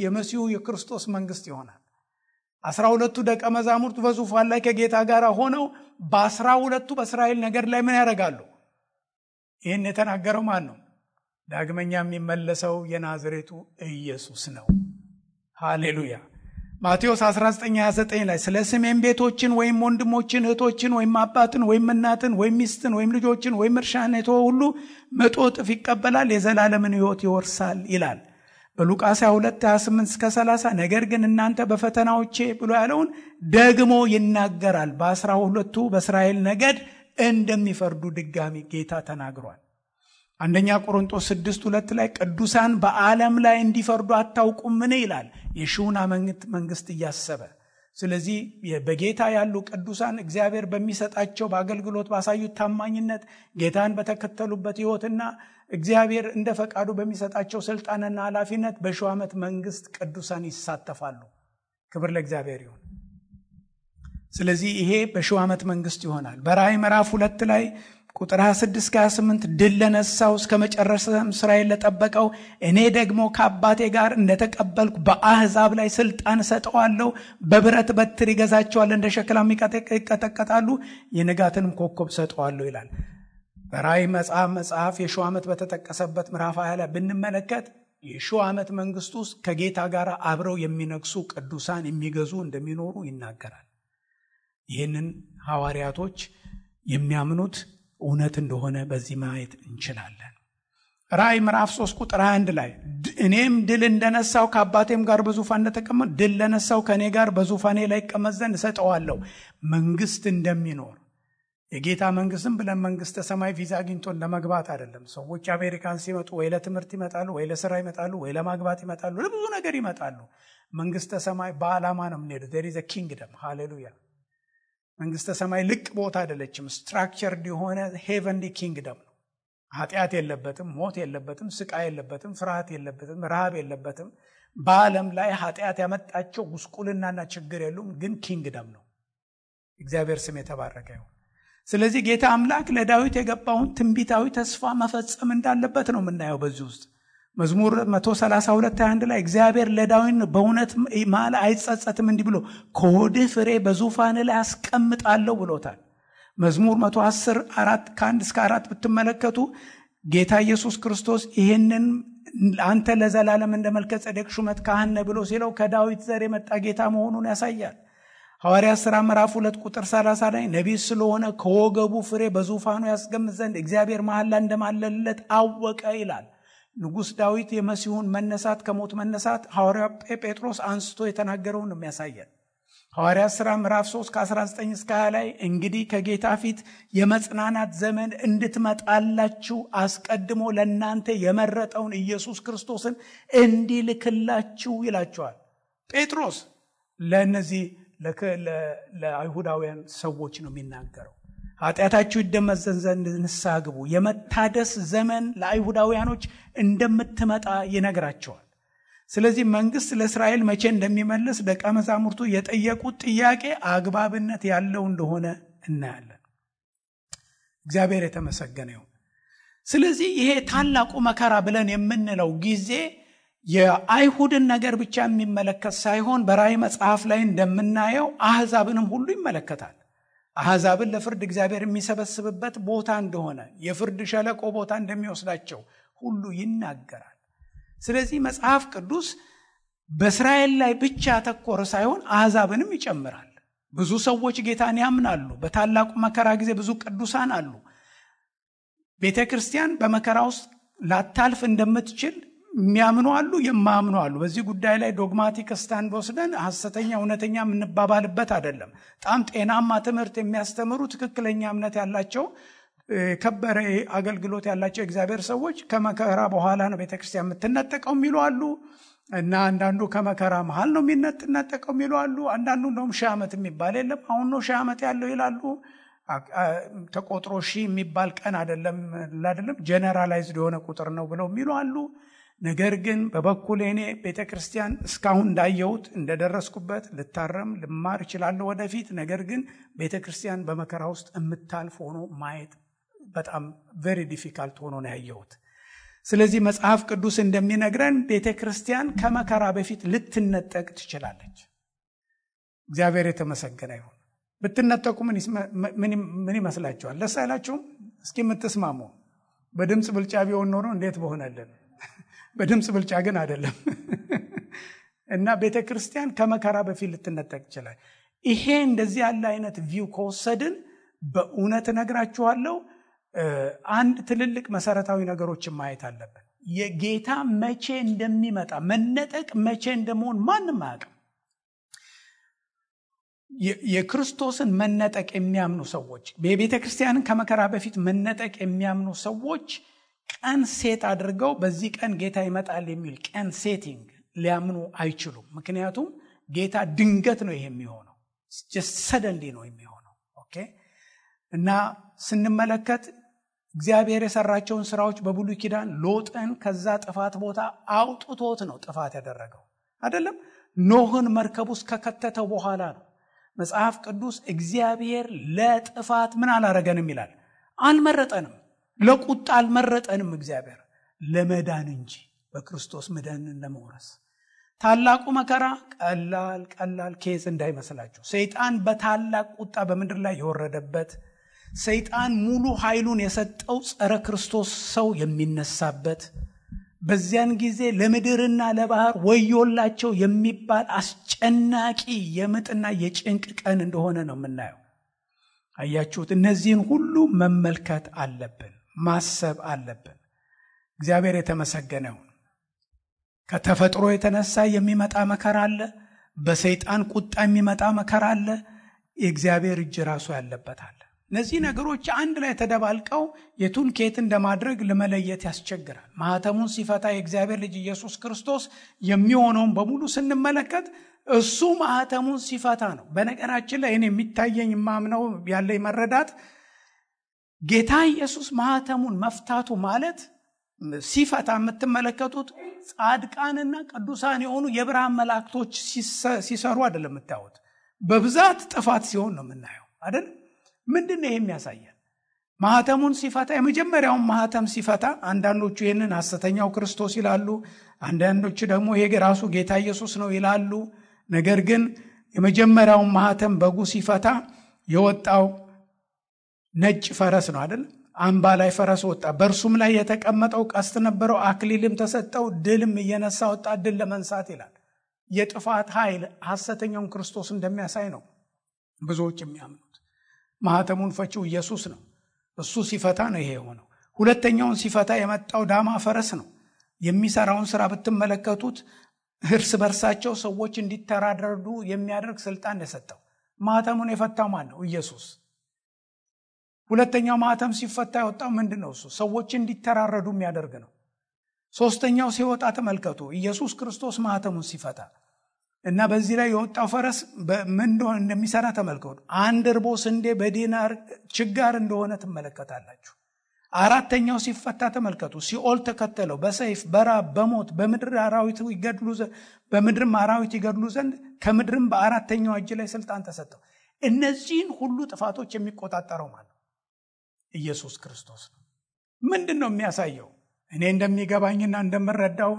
የመሲሁ የክርስቶስ መንግስት ይሆናል። 12ቱ ደቀ መዛሙርት በዙፋን ላይ ከጌታ ጋር ሆነው በ12ቱ በእስራኤል ነገድ ላይ ምን ያደርጋሉ? ይህን የተናገረው ማን ነው? ዳግመኛ የሚመለሰው የናዝሬቱ ኢየሱስ ነው። ሃሌሉያ። ማቴዎስ 19:29 ላይ ስለ ስሜም ቤቶችን ወይም ወንድሞችን እህቶችን ወይም አባትን ወይም እናትን ወይም ሚስትን ወይም ልጆችን ወይም እርሻን የተወ ሁሉ 100 እጥፍ ይቀበላል፣ የዘላለምን ሕይወት ይወርሳል ይላል። በሉቃስ 22:28-30 ነገር ግን እናንተ በፈተናዎቼ ብሎ ያለውን ደግሞ ይናገራል። በ12ቱ በእስራኤል ነገድ እንደሚፈርዱ ድጋሚ ጌታ ተናግሯል። አንደኛ ቆሮንቶስ 6:2 ላይ ቅዱሳን በዓለም ላይ እንዲፈርዱ አታውቁምን ይላል፣ የሺውን ዓመት መንግስት እያሰበ። ስለዚህ በጌታ ያሉ ቅዱሳን እግዚአብሔር በሚሰጣቸው በአገልግሎት ባሳዩት ታማኝነት ጌታን በተከተሉበት ሕይወትና እግዚአብሔር እንደ ፈቃዱ በሚሰጣቸው ስልጣንና ኃላፊነት በሺው ዓመት መንግስት ቅዱሳን ይሳተፋሉ። ክብር ለእግዚአብሔር ይሁን። ስለዚህ ይሄ በሺው ዓመት መንግስት ይሆናል። በራእይ ምዕራፍ 2 ላይ ቁጥር 26-28 ድል ለነሳው እስከ መጨረሻም ስራዬን ለጠበቀው እኔ ደግሞ ከአባቴ ጋር እንደተቀበልኩ በአሕዛብ ላይ ስልጣን ሰጠዋለሁ፣ በብረት በትር ይገዛቸዋል፣ እንደ ሸክላም ይቀጠቀጣሉ፣ የንጋትንም ኮከብ ሰጠዋለሁ ይላል። በራእይ መጽሐፍ የሺው ዓመት በተጠቀሰበት ምዕራፍ 20 ላይ ብንመለከት የሺው ዓመት መንግስት ውስጥ ከጌታ ጋር አብረው የሚነግሱ ቅዱሳን የሚገዙ እንደሚኖሩ ይናገራል። ይህንን ሐዋርያቶች የሚያምኑት እውነት እንደሆነ በዚህ ማየት እንችላለን። ራእይ ምዕራፍ 3 ቁጥር 21 ላይ እኔም ድል እንደነሳው ከአባቴም ጋር በዙፋን እንደተቀመጥ ድል ለነሳው ከኔ ጋር በዙፋኔ ላይ ይቀመጥ ዘንድ እሰጠዋለሁ። መንግስት እንደሚኖር የጌታ መንግስትም ብለን መንግስተ ሰማይ ቪዛ አግኝቶን ለመግባት አይደለም። ሰዎች አሜሪካን ሲመጡ ወይ ለትምህርት ይመጣሉ፣ ወይ ለስራ ይመጣሉ፣ ወይ ለማግባት ይመጣሉ፣ ለብዙ ነገር ይመጣሉ። መንግስተ ሰማይ በዓላማ ነው የምንሄደው። there is a kingdom ሃሌሉያ። መንግስተ ሰማይ ልቅ ቦታ አይደለችም። ስትራክቸርድ የሆነ ሄቨንሊ ኪንግደም ነው። ኃጢአት የለበትም፣ ሞት የለበትም፣ ስቃይ የለበትም፣ ፍርሃት የለበትም፣ ረሃብ የለበትም። በዓለም ላይ ኃጢአት ያመጣቸው ጉስቁልናና ችግር የሉም፣ ግን ኪንግደም ነው። እግዚአብሔር ስም የተባረከ ይሁን። ስለዚህ ጌታ አምላክ ለዳዊት የገባውን ትንቢታዊ ተስፋ መፈጸም እንዳለበት ነው የምናየው በዚህ ውስጥ። መዝሙር 132:21 ላይ እግዚአብሔር ለዳዊት በእውነት ማለ አይጸጸትም እንዲህ ብሎ ከሆድህ ፍሬ በዙፋን ላይ አስቀምጣለሁ ብሎታል። መዝሙር 110:1-4 ብትመለከቱ ጌታ ኢየሱስ ክርስቶስ ይህንን አንተ ለዘላለም እንደ መልከ ጼዴቅ ሹመት ካህን ነህ ብሎ ሲለው ከዳዊት ዘር የመጣ ጌታ መሆኑን ያሳያል። ሐዋርያት ሥራ ምዕራፍ 2:30 ላይ ነቢይ ስለሆነ ከወገቡ ፍሬ በዙፋኑ ያስቀምጥ ዘንድ እግዚአብሔር መሐላ እንደማለለት አወቀ ይላል። ንጉሥ ዳዊት የመሲሁን መነሳት ከሞት መነሳት ሐዋርያው ጴጥሮስ አንስቶ የተናገረውን ነው የሚያሳየን። ሐዋርያት ሥራ ምዕራፍ 3:19-20 ላይ እንግዲህ ከጌታ ፊት የመጽናናት ዘመን እንድትመጣላችሁ አስቀድሞ ለእናንተ የመረጠውን ኢየሱስ ክርስቶስን እንዲልክላችሁ ይላቸዋል ጴጥሮስ። ለእነዚህ ለአይሁዳውያን ሰዎች ነው የሚናገረው። ኃጢአታችሁ ይደመሰስ ዘንድ ንስሐ ግቡ፣ የመታደስ ዘመን ለአይሁዳውያኖች እንደምትመጣ ይነግራቸዋል። ስለዚህ መንግስት ለእስራኤል መቼ እንደሚመልስ ደቀ መዛሙርቱ የጠየቁት ጥያቄ አግባብነት ያለው እንደሆነ እናያለን። እግዚአብሔር የተመሰገነ ይሁን። ስለዚህ ይሄ ታላቁ መከራ ብለን የምንለው ጊዜ የአይሁድን ነገር ብቻ የሚመለከት ሳይሆን በራእይ መጽሐፍ ላይ እንደምናየው አሕዛብንም ሁሉ ይመለከታል። አሕዛብን ለፍርድ እግዚአብሔር የሚሰበስብበት ቦታ እንደሆነ የፍርድ ሸለቆ ቦታ እንደሚወስዳቸው ሁሉ ይናገራል። ስለዚህ መጽሐፍ ቅዱስ በእስራኤል ላይ ብቻ ተኮረ ሳይሆን አሕዛብንም ይጨምራል። ብዙ ሰዎች ጌታን ያምናሉ። በታላቁ መከራ ጊዜ ብዙ ቅዱሳን አሉ። ቤተ ክርስቲያን በመከራ ውስጥ ላታልፍ እንደምትችል የሚያምኑ አሉ፣ የማያምኑ አሉ። በዚህ ጉዳይ ላይ ዶግማቲክ ስታንድ ወስደን ሐሰተኛ እውነተኛ የምንባባልበት አይደለም። በጣም ጤናማ ትምህርት የሚያስተምሩ ትክክለኛ እምነት ያላቸው ከበረ አገልግሎት ያላቸው እግዚአብሔር ሰዎች ከመከራ በኋላ ነው ቤተክርስቲያን የምትነጠቀው የሚሉ አሉ እና አንዳንዱ ከመከራ መሃል ነው የሚነጠቀው የሚሉ አሉ። አንዳንዱ እንደውም 1000 ዓመት የሚባል የለም አሁን ነው 1000 ዓመት ያለው ይላሉ። ተቆጥሮ 1000 የሚባል ቀን አይደለም ጀነራላይዝድ የሆነ ቁጥር ነው ብለው የሚሉ አሉ። ነገር ግን በበኩሌ እኔ ቤተክርስቲያን እስካሁን እንዳየሁት እንደደረስኩበት ልታረም ልማር እችላለሁ ወደፊት። ነገር ግን ቤተክርስቲያን በመከራ ውስጥ የምታልፍ ሆኖ ማየት በጣም ቬሪ ዲፊካልት ሆኖ ነው ያየሁት። ስለዚህ መጽሐፍ ቅዱስ እንደሚነግረን ቤተክርስቲያን ከመከራ በፊት ልትነጠቅ ትችላለች። እግዚአብሔር የተመሰገነ ይሁን። ብትነጠቁ ምን ይመስላችኋል? ደስ አይላችሁም? እስኪ የምትስማሙ በድምፅ ብልጫ ቢሆን ኖሮ እንዴት በሆነልን። በድምፅ ብልጫ ግን አይደለም። እና ቤተክርስቲያን ከመከራ በፊት ልትነጠቅ ይችላል። ይሄ እንደዚህ ያለ አይነት ቪው ከወሰድን በእውነት እነግራችኋለሁ አንድ ትልልቅ መሰረታዊ ነገሮችን ማየት አለብን። የጌታ መቼ እንደሚመጣ መነጠቅ መቼ እንደመሆን ማንም አያውቅም። የክርስቶስን መነጠቅ የሚያምኑ ሰዎች በቤተክርስቲያንን ከመከራ በፊት መነጠቅ የሚያምኑ ሰዎች ቀን ሴት አድርገው በዚህ ቀን ጌታ ይመጣል የሚል ቀን ሴቲንግ ሊያምኑ አይችሉም። ምክንያቱም ጌታ ድንገት ነው ይሄ የሚሆነው፣ just suddenly ነው የሚሆነው። ኦኬ። እና ስንመለከት እግዚአብሔር የሰራቸውን ስራዎች በብሉይ ኪዳን ሎጥን ከዛ ጥፋት ቦታ አውጥቶት ነው ጥፋት ያደረገው አይደለም። ኖህን መርከብ ውስጥ ከከተተው በኋላ ነው። መጽሐፍ ቅዱስ እግዚአብሔር ለጥፋት ምን አላረገንም ይላል፣ አልመረጠንም። ለቁጣ አልመረጠንም። እግዚአብሔር ለመዳን እንጂ በክርስቶስ መዳንን ለመውረስ። ታላቁ መከራ ቀላል ኬዝ እንዳይመስላችሁ። ሰይጣን በታላቅ ቁጣ በምድር ላይ የወረደበት፣ ሰይጣን ሙሉ ኃይሉን የሰጠው ጸረ ክርስቶስ ሰው የሚነሳበት፣ በዚያን ጊዜ ለምድርና ለባህር ወዮላቸው የሚባል አስጨናቂ የምጥና የጭንቅ ቀን እንደሆነ ነው የምናየው። አያችሁት? እነዚህን ሁሉ መመልከት አለብን፣ ማሰብ አለብን። እግዚአብሔር የተመሰገነ ይሁን። ከተፈጥሮ የተነሳ የሚመጣ መከራ አለ። በሰይጣን ቁጣ የሚመጣ መከራ አለ። የእግዚአብሔር እጅ ራሱ ያለበት አለ። እነዚህ ነገሮች አንድ ላይ ተደባልቀው የቱን ከየት እንደማድረግ ለመለየት ያስቸግራል። ማህተሙን ሲፈታ የእግዚአብሔር ልጅ ኢየሱስ ክርስቶስ የሚሆነውን በሙሉ ስንመለከት እሱ ማህተሙን ሲፈታ ነው። በነገራችን ላይ እኔ የሚታየኝ ማምነው ያለኝ መረዳት ጌታ ኢየሱስ ማህተሙን መፍታቱ ማለት ሲፈታ የምትመለከቱት ጻድቃንና ቅዱሳን የሆኑ የብርሃን መላእክቶች ሲሰሩ አይደለም የምታዩት። በብዛት ጥፋት ሲሆን ነው የምናየው አይደል? ምንድነው ይሄ የሚያሳየን? ማህተሙን ሲፈታ የመጀመሪያውን ማህተም ሲፈታ አንዳንዶቹ ይህንን ሐሰተኛው ክርስቶስ ይላሉ፣ አንዳንዶቹ ደግሞ ይሄ ራሱ ጌታ ኢየሱስ ነው ይላሉ። ነገር ግን የመጀመሪያውን ማህተም በጉ ሲፈታ የወጣው ነጭ ፈረስ ነው አይደል? አምባ ላይ ፈረስ ወጣ። በእርሱም ላይ የተቀመጠው ቀስት ነበረው፣ አክሊልም ተሰጠው፣ ድልም እየነሳ ወጣ፣ ድል ለመንሳት ይላል። የጥፋት ኃይል ሐሰተኛውን ክርስቶስ እንደሚያሳይ ነው ብዙዎች የሚያምኑት። ማህተሙን ፈቺው ኢየሱስ ነው። እሱ ሲፈታ ነው ይሄ የሆነው። ሁለተኛውን ሲፈታ የመጣው ዳማ ፈረስ ነው። የሚሰራውን ስራ ብትመለከቱት እርስ በርሳቸው ሰዎች እንዲተራረዱ የሚያደርግ ስልጣን የሰጠው። ማህተሙን የፈታው ማን ነው? ኢየሱስ። ሁለተኛው ማህተም ሲፈታ የወጣው ምንድነው? እሱ ሰዎች እንዲተራረዱ የሚያደርግ ነው። ሶስተኛው ሲወጣ ተመልከቱ፣ ኢየሱስ ክርስቶስ ማህተሙን ሲፈታ እና በዚህ ላይ የወጣው ፈረስ ምን እንደሚሰራ ተመልከቱ። 1 እርቦ ስንዴ በዲናር ችጋር እንደሆነ ትመለከታላችሁ። አራተኛው ሲፈታ ተመልከቱ፣ ሲኦል ተከተለው፣ በሰይፍ በራብ በሞት በምድርም አራዊት ይገድሉ ዘንድ ከምድርም በአራተኛው እጅ ላይ ስልጣን ተሰጠው። እነዚህን ሁሉ ጥፋቶች የሚቆጣጠረው ማለት ኢየሱስ ክርስቶስ ነው። ምንድነው የሚያሳየው? እኔ እንደሚገባኝና እንደምረዳው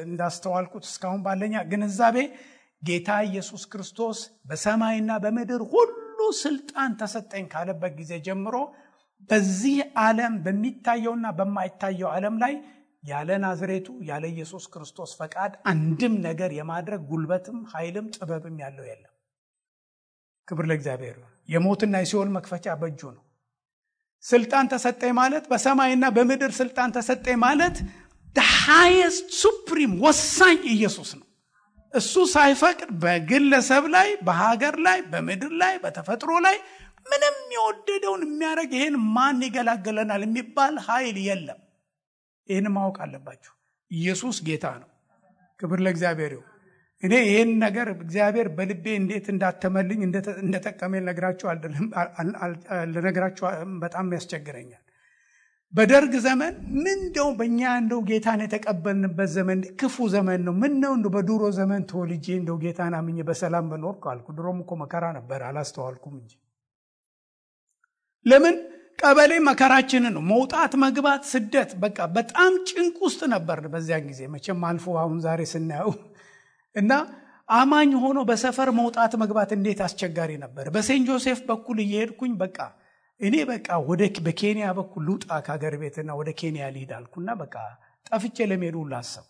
እንዳስተዋልኩት እስካሁን ባለኛ ግንዛቤ ጌታ ኢየሱስ ክርስቶስ በሰማይና በምድር ሁሉ ስልጣን ተሰጠኝ ካለበት ጊዜ ጀምሮ በዚህ ዓለም በሚታየውና በማይታየው ዓለም ላይ ያለ ናዝሬቱ ያለ ኢየሱስ ክርስቶስ ፈቃድ አንድም ነገር የማድረግ ጉልበትም ኃይልም ጥበብም ያለው የለም። ክብር ለእግዚአብሔር። የሞትና የሲኦል መክፈቻ በእጁ ነው። ስልጣን ተሰጠኝ ማለት በሰማይና በምድር ስልጣን ተሰጠኝ ማለት the highest supreme ወሳኝ ኢየሱስ ነው። እሱ ሳይፈቅድ በግለሰብ ላይ በሀገር ላይ በምድር ላይ በተፈጥሮ ላይ ምንም የወደደውን የሚያደርግ ይሄን ማን ይገላገለናል የሚባል ኃይል የለም። ይሄን ማወቅ አለባችሁ። ኢየሱስ ጌታ ነው። ክብር ለእግዚአብሔር ይሁን። እኔ ይሄን ነገር እግዚአብሔር በልቤ እንዴት እንዳተመልኝ እንደተጠቀመኝ ልነግራችሁ በጣም ያስቸግረኛል። በደርግ ዘመን ምን እንደው በእኛ እንደው ጌታን የተቀበልንበት ዘመን ክፉ ዘመን ነው። ምን ነው እንደው በድሮ ዘመን ተወልጄ እንደው ጌታን አምኜ በሰላም በኖርኩ አልኩ። ድሮም እኮ መከራ ነበር፣ አላስተዋልኩም እንጂ። ለምን ቀበሌ መከራችንን ነው። መውጣት መግባት ስደት በቃ በጣም ጭንቅ ውስጥ ነበር በዚያን ጊዜ። መቼም አልፎ አሁን ዛሬ ስናየው እና አማኝ ሆኖ በሰፈር መውጣት መግባት እንዴት አስቸጋሪ ነበር። በሴንት ጆሴፍ በኩል እየሄድኩኝ በቃ እኔ በቃ በኬንያ በኩል ልውጣ ከሀገር ቤትና ወደ ኬንያ ልሂድ አልኩና በቃ ጠፍቼ ለመሄድ ሁሉ አሰብኩ።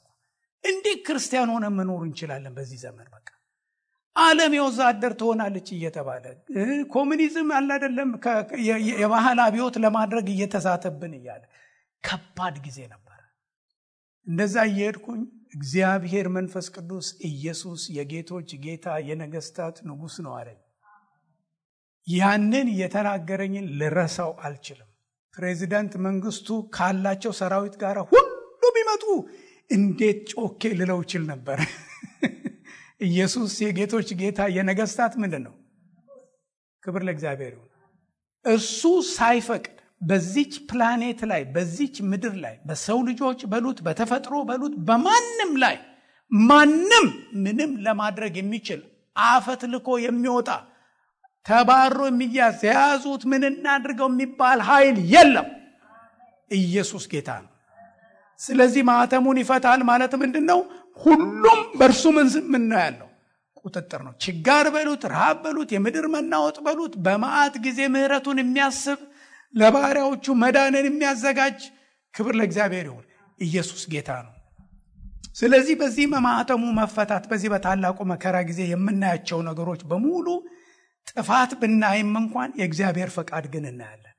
እንዴት ክርስቲያን ሆነ መኖር እንችላለን በዚህ ዘመን? በቃ ዓለም የወዛደር ትሆናለች እየተባለ ኮሙኒዝም አለ አይደለም የባህል አብዮት ለማድረግ እየተዛተብን እያለ ከባድ ጊዜ ነበር። እንደዛ እየሄድኩኝ እግዚአብሔር መንፈስ ቅዱስ ኢየሱስ የጌቶች ጌታ የነገስታት ንጉስ ነው አለኝ። ያንን የተናገረኝን ልረሳው አልችልም። ፕሬዚዳንት መንግስቱ ካላቸው ሰራዊት ጋር ሁሉ ቢመጡ እንዴት ጮኬ ልለው ይችል ነበር። ኢየሱስ የጌቶች ጌታ የነገስታት ምንድነው? ክብር ለእግዚአብሔር ይሁን። እሱ ሳይፈቅድ በዚች ፕላኔት ላይ በዚች ምድር ላይ በሰው ልጆች በሉት በተፈጥሮ በሉት በማንም ላይ ማንም ምንም ለማድረግ የሚችል አፈት ልኮ የሚወጣ ተባሮ የሚያዝ ያዙት ምን እናድርገው የሚባል ኃይል የለም። ኢየሱስ ጌታ ነው። ስለዚህ ማህተሙን ይፈታል ማለት ምንድነው? ሁሉም በእርሱ ምን ነው ያለው? ቁጥጥር ነው። ችጋር በሉት ረሃብ በሉት የምድር መናወጥ በሉት በመዓት ጊዜ ምህረቱን የሚያስብ ለባሪያዎቹ መዳንን የሚያዘጋጅ ክብር ለእግዚአብሔር ይሁን። ኢየሱስ ጌታ ነው። ስለዚህ በዚህ ማህተሙ መፈታት በዚህ በታላቁ መከራ ጊዜ የምናያቸው ነገሮች በሙሉ ጥፋት ብናይም እንኳን የእግዚአብሔር ፈቃድ ግን እናያለን።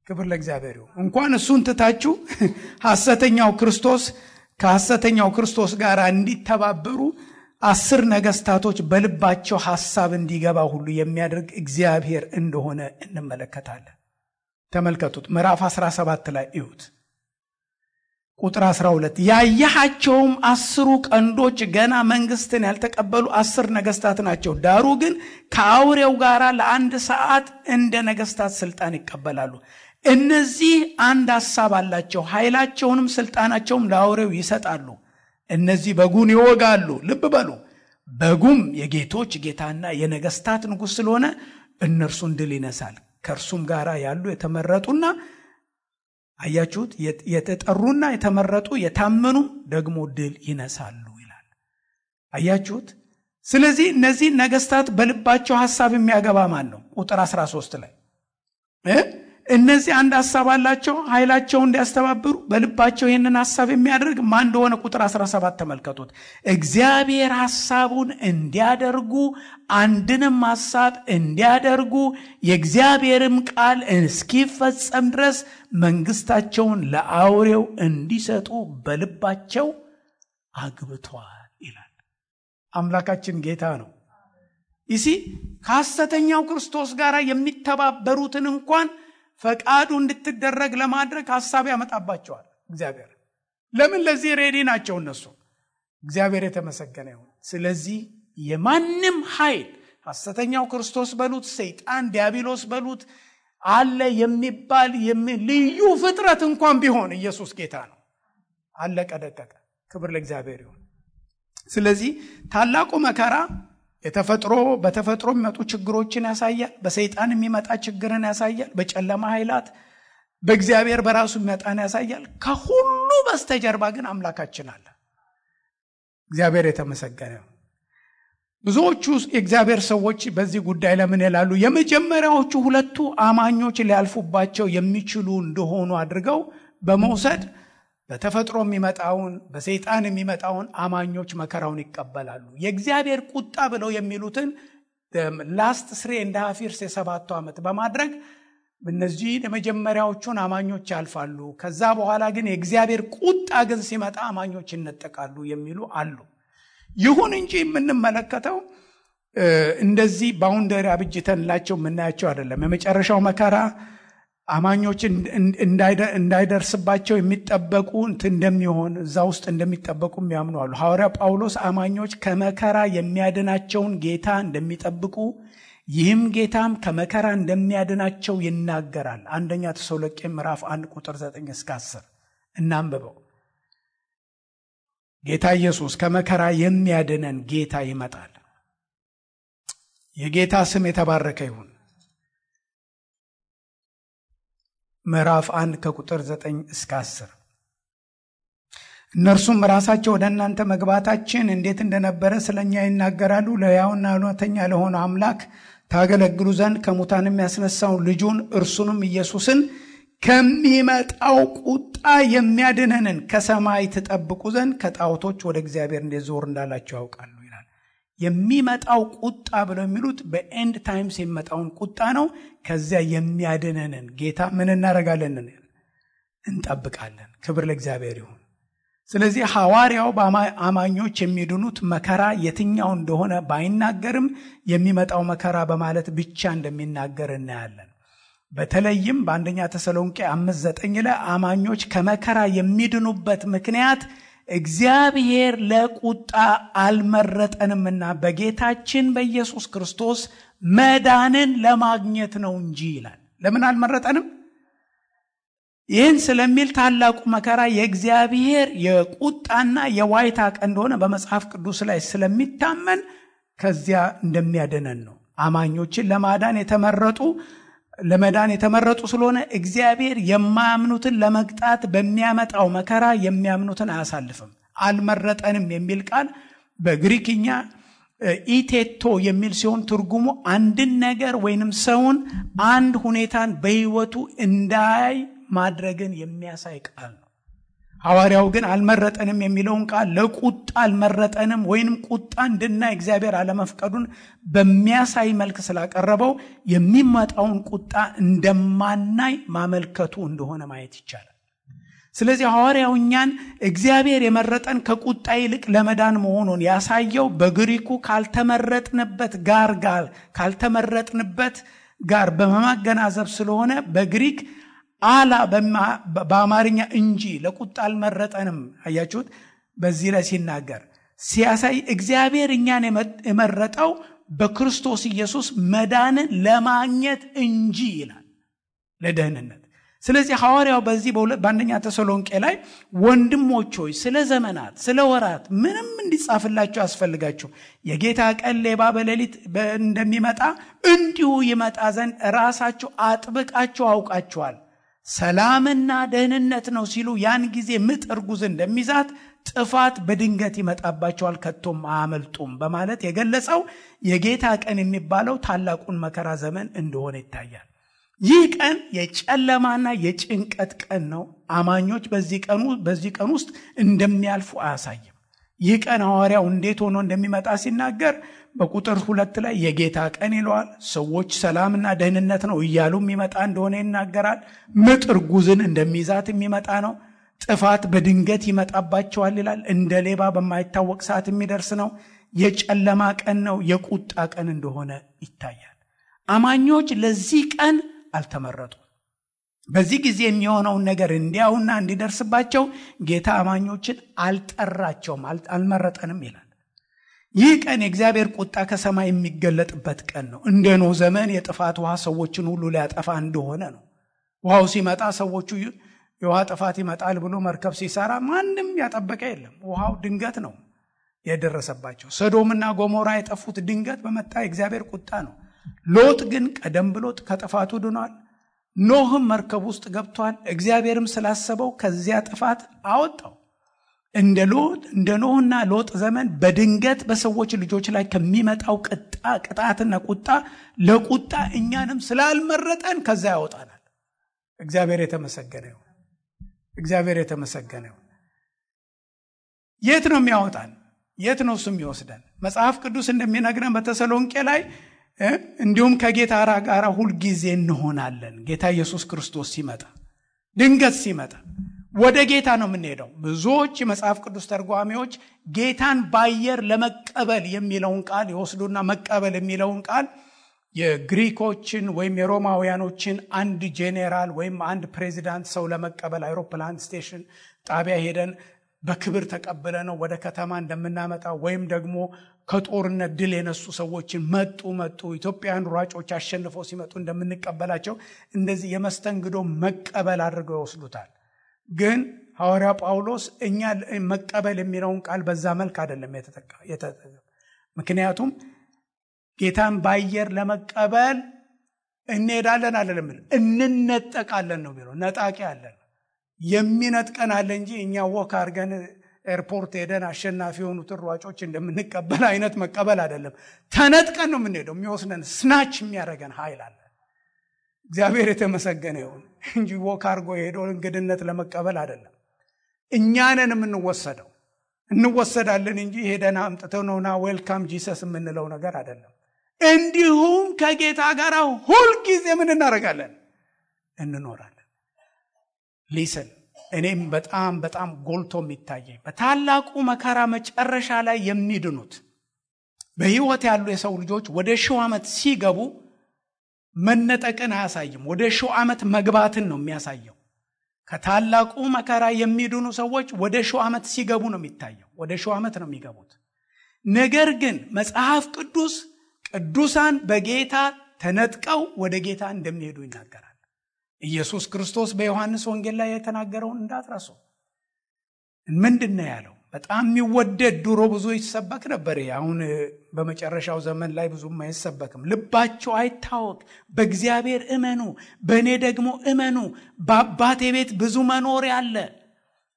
ክብር ለእግዚአብሔር ይሁን። እንኳን እሱን ትታችሁ ከሐሰተኛው ክርስቶስ ጋር እንዲተባበሩ 10 ነገስታቶች በልባቸው ሐሳብ እንዲገባ ሁሉ የሚያደርግ እግዚአብሔር እንደሆነ እንመለከታለን። ተመልከቱት። ምዕራፍ 17 ላይ እዩት። ቁጥር 12 ያያቸውም 10 ቀንዶች ገና መንግስትን ያልተቀበሉ 10 ነገስታት ናቸው። ዳሩ ግን ከአውሬው ጋር ለ1 ሰዓት እንደ ነገስታት ስልጣን ይቀበላሉ። እነዚህ አንድ ሐሳብ አላቸው፣ ኃይላቸውንም ስልጣናቸውም ለአውሬው ይሰጣሉ። እነዚህ በጉን ይወጋሉ። ልብ በሉ፣ በጉም የጌቶች ጌታና የነገስታት ንጉስ ስለሆነ እነርሱን ድል ይነሳል። ከእርሱም ጋር ያሉ የተመረጡና አያችሁት የተጠሩና የተመረጡ የታመኑ ደግሞ ድል ይነሳሉ ይላል። አያችሁት። ስለዚህ እነዚህ ነገስታት በልባቸው ሐሳብ የሚያገባ ማን ነው? ቁጥር 13 ላይ እነዚህ አንድ ሐሳብ አላቸው፣ ኃይላቸውን እንዲያስተባብሩ በልባቸው ይህንን ሐሳብ የሚያደርግ ማን እንደሆነ ቁጥር 17 ተመልከቱት። እግዚአብሔር ሐሳቡን እንዲያደርጉ አንድንም ሐሳብ እንዲያደርጉ የእግዚአብሔርም ቃል እስኪፈጸም ድረስ መንግስታቸውን ለአውሬው እንዲሰጡ በልባቸው አግብተዋል ይላል። አምላካችን ጌታ ነው። ይሲ ከሐሰተኛው ክርስቶስ ጋር የሚተባበሩትን እንኳን ፈቃዱ እንድትደረግ ለማድረግ ሐሳብ ያመጣባቸዋል እግዚአብሔር። ለምን? ለዚህ ሬዲ ናቸው እነሱ። እግዚአብሔር የተመሰገነ ይሁን። ስለዚህ የማንም ኃይል ሐሰተኛው ክርስቶስ በሉት፣ ሰይጣን ዲያብሎስ በሉት፣ አለ የሚባል ልዩ ፍጥረት እንኳን ቢሆን ኢየሱስ ጌታ ነው። አለቀ ደቀቀ። ክብር ለእግዚአብሔር ይሁን። ስለዚህ ታላቁ መከራ በተፈጥሮ የሚመጡ ችግሮችን ያሳያል። በሰይጣን የሚመጣ ችግርን ያሳያል። በጨለማ ኃይላት በእግዚአብሔር በራሱ የሚመጣን ያሳያል። ከሁሉ በስተጀርባ ግን አምላካችን አለ። እግዚአብሔር የተመሰገነ ነው። ብዙዎቹ የእግዚአብሔር ሰዎች በዚህ ጉዳይ ለምን ይላሉ? የመጀመሪያዎቹ ሁለቱ አማኞች ሊያልፉባቸው የሚችሉ እንደሆኑ አድርገው በመውሰድ በተፈጥሮ የሚመጣውን በሰይጣን የሚመጣውን አማኞች መከራውን ይቀበላሉ። የእግዚአብሔር ቁጣ ብለው የሚሉትን ላስት 3.5 years የ7 ዓመት በማድረግ እነዚህ የመጀመሪያዎቹን አማኞች ያልፋሉ። ከዛ በኋላ ግን የእግዚአብሔር ቁጣ ግን ሲመጣ አማኞች ይነጠቃሉ የሚሉ አሉ። ይሁን እንጂ የምንመለከተው እንደዚህ ባውንደሪ አብጅተንላቸው የምናያቸው አይደለም። የመጨረሻው መከራ አማኞች እንዳይደርስባቸው የሚጠበቁ እንደሚሆን እዛ ውስጥ እንደሚጠበቁ የሚያምኑ አሉ። ሐዋርያ ጳውሎስ አማኞች ከመከራ የሚያድናቸውን ጌታ እንደሚጠብቁ ይህም ጌታም ከመከራ እንደሚያድናቸው ይናገራል። አንደኛ ተሰሎንቄ ምዕራፍ 1 ቁጥር 9 እስከ 10 እናንብበው። ጌታ ኢየሱስ ከመከራ የሚያድነን ጌታ ይመጣል። የጌታ ስም የተባረከ ይሁን። ምዕራፍ 1 ከቁጥር 9 እስከ 10 እነርሱም ራሳቸው ወደ እናንተ መግባታችን እንዴት እንደነበረ ስለኛ ይናገራሉ። ለሕያውና እውነተኛ ለሆነ አምላክ ታገለግሉ ዘንድ ከሙታንም ያስነሳውን ልጁን እርሱንም ኢየሱስን ከሚመጣው ቁጣ የሚያድነንን ከሰማይ ትጠብቁ ዘንድ ከጣዖቶች ወደ እግዚአብሔር እንዴት ዞር እንዳላችሁ ያውቃሉ ይላል። የሚመጣው ቁጣ ብለው የሚሉት በኤንድ ታይምስ የሚመጣውን ቁጣ ነው። ከዚያ የሚያድነንን ጌታ ምን እናደርጋለን? እንጠብቃለን። ክብር ለእግዚአብሔር ይሁን። ስለዚህ ሐዋርያው በአማኞች የሚድኑት መከራ የትኛው እንደሆነ ባይናገርም የሚመጣው መከራ በማለት ብቻ እንደሚናገር እናያለን። በተለይም በአንደኛ ተሰሎንቄ 5:9 ላይ አማኞች ከመከራ የሚድኑበት ምክንያት እግዚአብሔር ለቁጣ አልመረጠንምና በጌታችን በኢየሱስ ክርስቶስ መዳንን ለማግኘት ነው እንጂ ይላል። ለምን አልመረጠንም? ይህን ስለሚል ታላቁ መከራ የእግዚአብሔር የቁጣና የዋይታ ቀን እንደሆነ በመጽሐፍ ቅዱስ ላይ ስለሚታመን ከዚያ እንደሚያድነን ነው። አማኞችን ለመዳን የተመረጡ ስለሆነ እግዚአብሔር የማያምኑትን ለመቅጣት በሚያመጣው መከራ የሚያምኑትን አያሳልፍም። አልመረጠንም የሚል ቃል በግሪክኛ ኢቴቶ የሚል ሲሆን ትርጉሙ አንድን ነገር ወይንም ሰውን አንድ ሁኔታን በሕይወቱ እንዳይ ማድረግን የሚያሳይ ቃል ነው። ሐዋርያው ግን አልመረጠንም የሚለውን ቃል ለቁጣ አልመረጠንም ወይንም ቁጣ እንድናይ እግዚአብሔር አለመፍቀዱን በሚያሳይ መልክ ስላቀረበው የሚመጣውን ቁጣ እንደማናይ ማመልከቱ እንደሆነ ማየት ይቻላል። ስለዚህ ሐዋርያው እኛን እግዚአብሔር የመረጠን ከቁጣ ይልቅ ለመዳን መሆኑን ያሳየው በግሪኩ ካልተመረጥንበት ጋር በማገናዘብ ስለሆነ በግሪክ አላ በአማርኛ እንጂ ለቁጣ አልመረጠንም። አያችሁት? በዚህ ላይ ሲናገር ሲያሳይ እግዚአብሔር እኛን የመረጠው በክርስቶስ ኢየሱስ መዳንን ለማግኘት እንጂ ይላል፣ ለደህንነት። ስለዚህ ሐዋርያው በዚህ በአንደኛ ተሰሎንቄ ላይ ወንድሞች ሆይ ስለ ዘመናት ስለ ወራት ምንም እንዲጻፍላችሁ ያስፈልጋችሁ የጌታ ቀን ሌባ በሌሊት እንደሚመጣ እንዲሁ ይመጣ ዘንድ ራሳችሁ አጥብቃችሁ አውቃችኋል። ሰላምና ደህንነት ነው ሲሉ ያን ጊዜ ምጥ እርጉዝ እንደሚዛት ጥፋት በድንገት ይመጣባቸዋል ከቶም አያመልጡም በማለት የገለጸው የጌታ ቀን የሚባለው ታላቁን መከራ ዘመን እንደሆነ ይታያል። ይህ ቀን የጨለማና የጭንቀት ቀን ነው። አማኞች በዚህ ቀን ውስጥ እንደሚያልፉ አያሳይም። ይህ ቀን ሐዋርያው እንዴት ሆኖ እንደሚመጣ ሲናገር በቁጥር 2 ላይ የጌታ ቀን ይለዋል። ሰዎች ሰላምና ደህንነት ነው እያሉ የሚመጣ እንደሆነ ይናገራል። ምጥ እርጉዝን እንደሚይዛት የሚመጣ ነው። ጥፋት በድንገት ይመጣባቸዋል ይላል። እንደ ሌባ በማይታወቅ ሰዓት የሚደርስ ነው። የጨለማ ቀን ነው። የቁጣ ቀን እንደሆነ ይታያል። አማኞች ለዚህ ቀን አልተመረጡም። በዚህ ጊዜ የሚሆነውን ነገር እንዲያውና እንዲደርስባቸው ጌታ አማኞችን አልጠራቸውም፣ አልመረጠንም ይላል። ይህ ቀን የእግዚአብሔር ቁጣ ከሰማይ የሚገለጥበት ቀን ነው። እንደ ኖህ ዘመን የጥፋት ውሃ ሰዎችን ሁሉ ሊያጠፋ እንደሆነ ነው። ውሃው ሲመጣ ሰዎቹ የውሃ ጥፋት ይመጣል ብሎ መርከብ ሲሰራ ማንም ያጠበቀ የለም። ውሃው ድንገት ነው የደረሰባቸው። ሰዶምና ጎሞራ የጠፉት ድንገት በመጣ የእግዚአብሔር ቁጣ ነው። ሎጥ ግን ቀደም ብሎ ከጥፋቱ ድኗል። ኖህም መርከብ ውስጥ ገብቷል። እግዚአብሔርም ስላሰበው ከዚያ ጥፋት አወጣው። እንደ ኖህና ሎጥ ዘመን በድንገት በሰዎች ልጆች ላይ ከሚመጣው ቅጣትና ቁጣ ለቁጣ እኛንም ስላልመረጠን ከዛ ያወጣናል። እግዚአብሔር የተመሰገነ ይሁን። እግዚአብሔር የተመሰገነ ይሁን። የት ነው የሚያወጣን? የት ነው እሱ የሚወስደን? መጽሐፍ ቅዱስ እንደሚነግረን በተሰሎንቄ ላይ እንዲሁም ከጌታ ጋር ሁል ጊዜ እንሆናለን። ጌታ ኢየሱስ ክርስቶስ ሲመጣ ድንገት ሲመጣ ወደ ጌታ ነው የምንሄደው። ብዙዎች የመጽሐፍ ቅዱስ ተርጓሚዎች ጌታን በአየር ለመቀበል የሚለውን ቃል ይወስዱና መቀበል የሚለውን ቃል የግሪኮችን ወይም የሮማውያኖችን አንድ ጄኔራል ወይም አንድ ፕሬዚዳንት ሰው ለመቀበል አይሮፕላን ስቴሽን ጣቢያ ሄደን በክብር ተቀበለ ነው ወደ ከተማ እንደምናመጣው ወይም ደግሞ ከጦርነት ድል የነሱ ሰዎችን መጡ ኢትዮጵያውያን ሯጮች አሸንፈው ሲመጡ እንደምንቀበላቸው እንደዚህ የመስተንግዶ መቀበል አድርገው ይወስዱታል። ግን ሐዋርያ ጳውሎስ እኛ መቀበል የሚለውን ቃል በዛ መልክ አይደለም የተጠቀመው። ምክንያቱም ጌታን በአየር ለመቀበል እንሄዳለን አይደለም፣ እንነጠቃለን ነው የሚለው። ነጣቂ አለን፣ የሚነጥቀን አለ እንጂ እኛ ወክ አድርገን ኤርፖርት ሄደን አሸናፊ የሆኑትን ሯጮች እንደምንቀበል አይነት መቀበል አይደለም። ተነጥቀን ነው የምንሄደው። የሚወስነን ስናች የሚያደርገን ኃይል አለ። እግዚአብሔር የተመሰገነ ይሁን እንጂ ወክ አድርጎ ሄዶ እንግድነት ለመቀበል አይደለም። እኛንን የምንወሰደው እንወሰዳለን እንጂ ሄደን አምጥተው ነውና ዌልካም ጂሰስ የምንለው ነገር አይደለም። እንዲሁም ከጌታ ጋር ሁል ጊዜ ምን እናደርጋለን? እንኖራለን። ሊስን እኔም በጣም ጎልቶ የሚታየኝ በታላቁ መከራ መጨረሻ ላይ የሚድኑት በህይወት ያሉ የሰው ልጆች ወደ 1000 ዓመት ሲገቡ መነጠቅን አያሳይም። ወደ 1000 ዓመት መግባትን ነው የሚያሳየው። ከታላቁ መከራ የሚድኑ ሰዎች ወደ 1000 ዓመት ሲገቡ ነው የሚታየው። ወደ 1000 ዓመት ነው የሚገቡት። ነገር ግን መጽሐፍ ቅዱስ ቅዱሳን በጌታ ተነጥቀው ወደ ጌታ እንደሚሄዱ ይናገራል። ኢየሱስ ክርስቶስ በዮሐንስ ወንጌል ላይ የተናገረውን እንዳትረሱ። ምንድነው ያለው? በጣም የሚወደድ ድሮ ብዙ ይሰበክ ነበር። አሁን በመጨረሻው ዘመን ላይ ብዙም አይሰበክም። ልባችሁ አይታወክ፣ በእግዚአብሔር እመኑ፣ በእኔ ደግሞ እመኑ። በአባቴ ቤት ብዙ መኖሪያ አለ።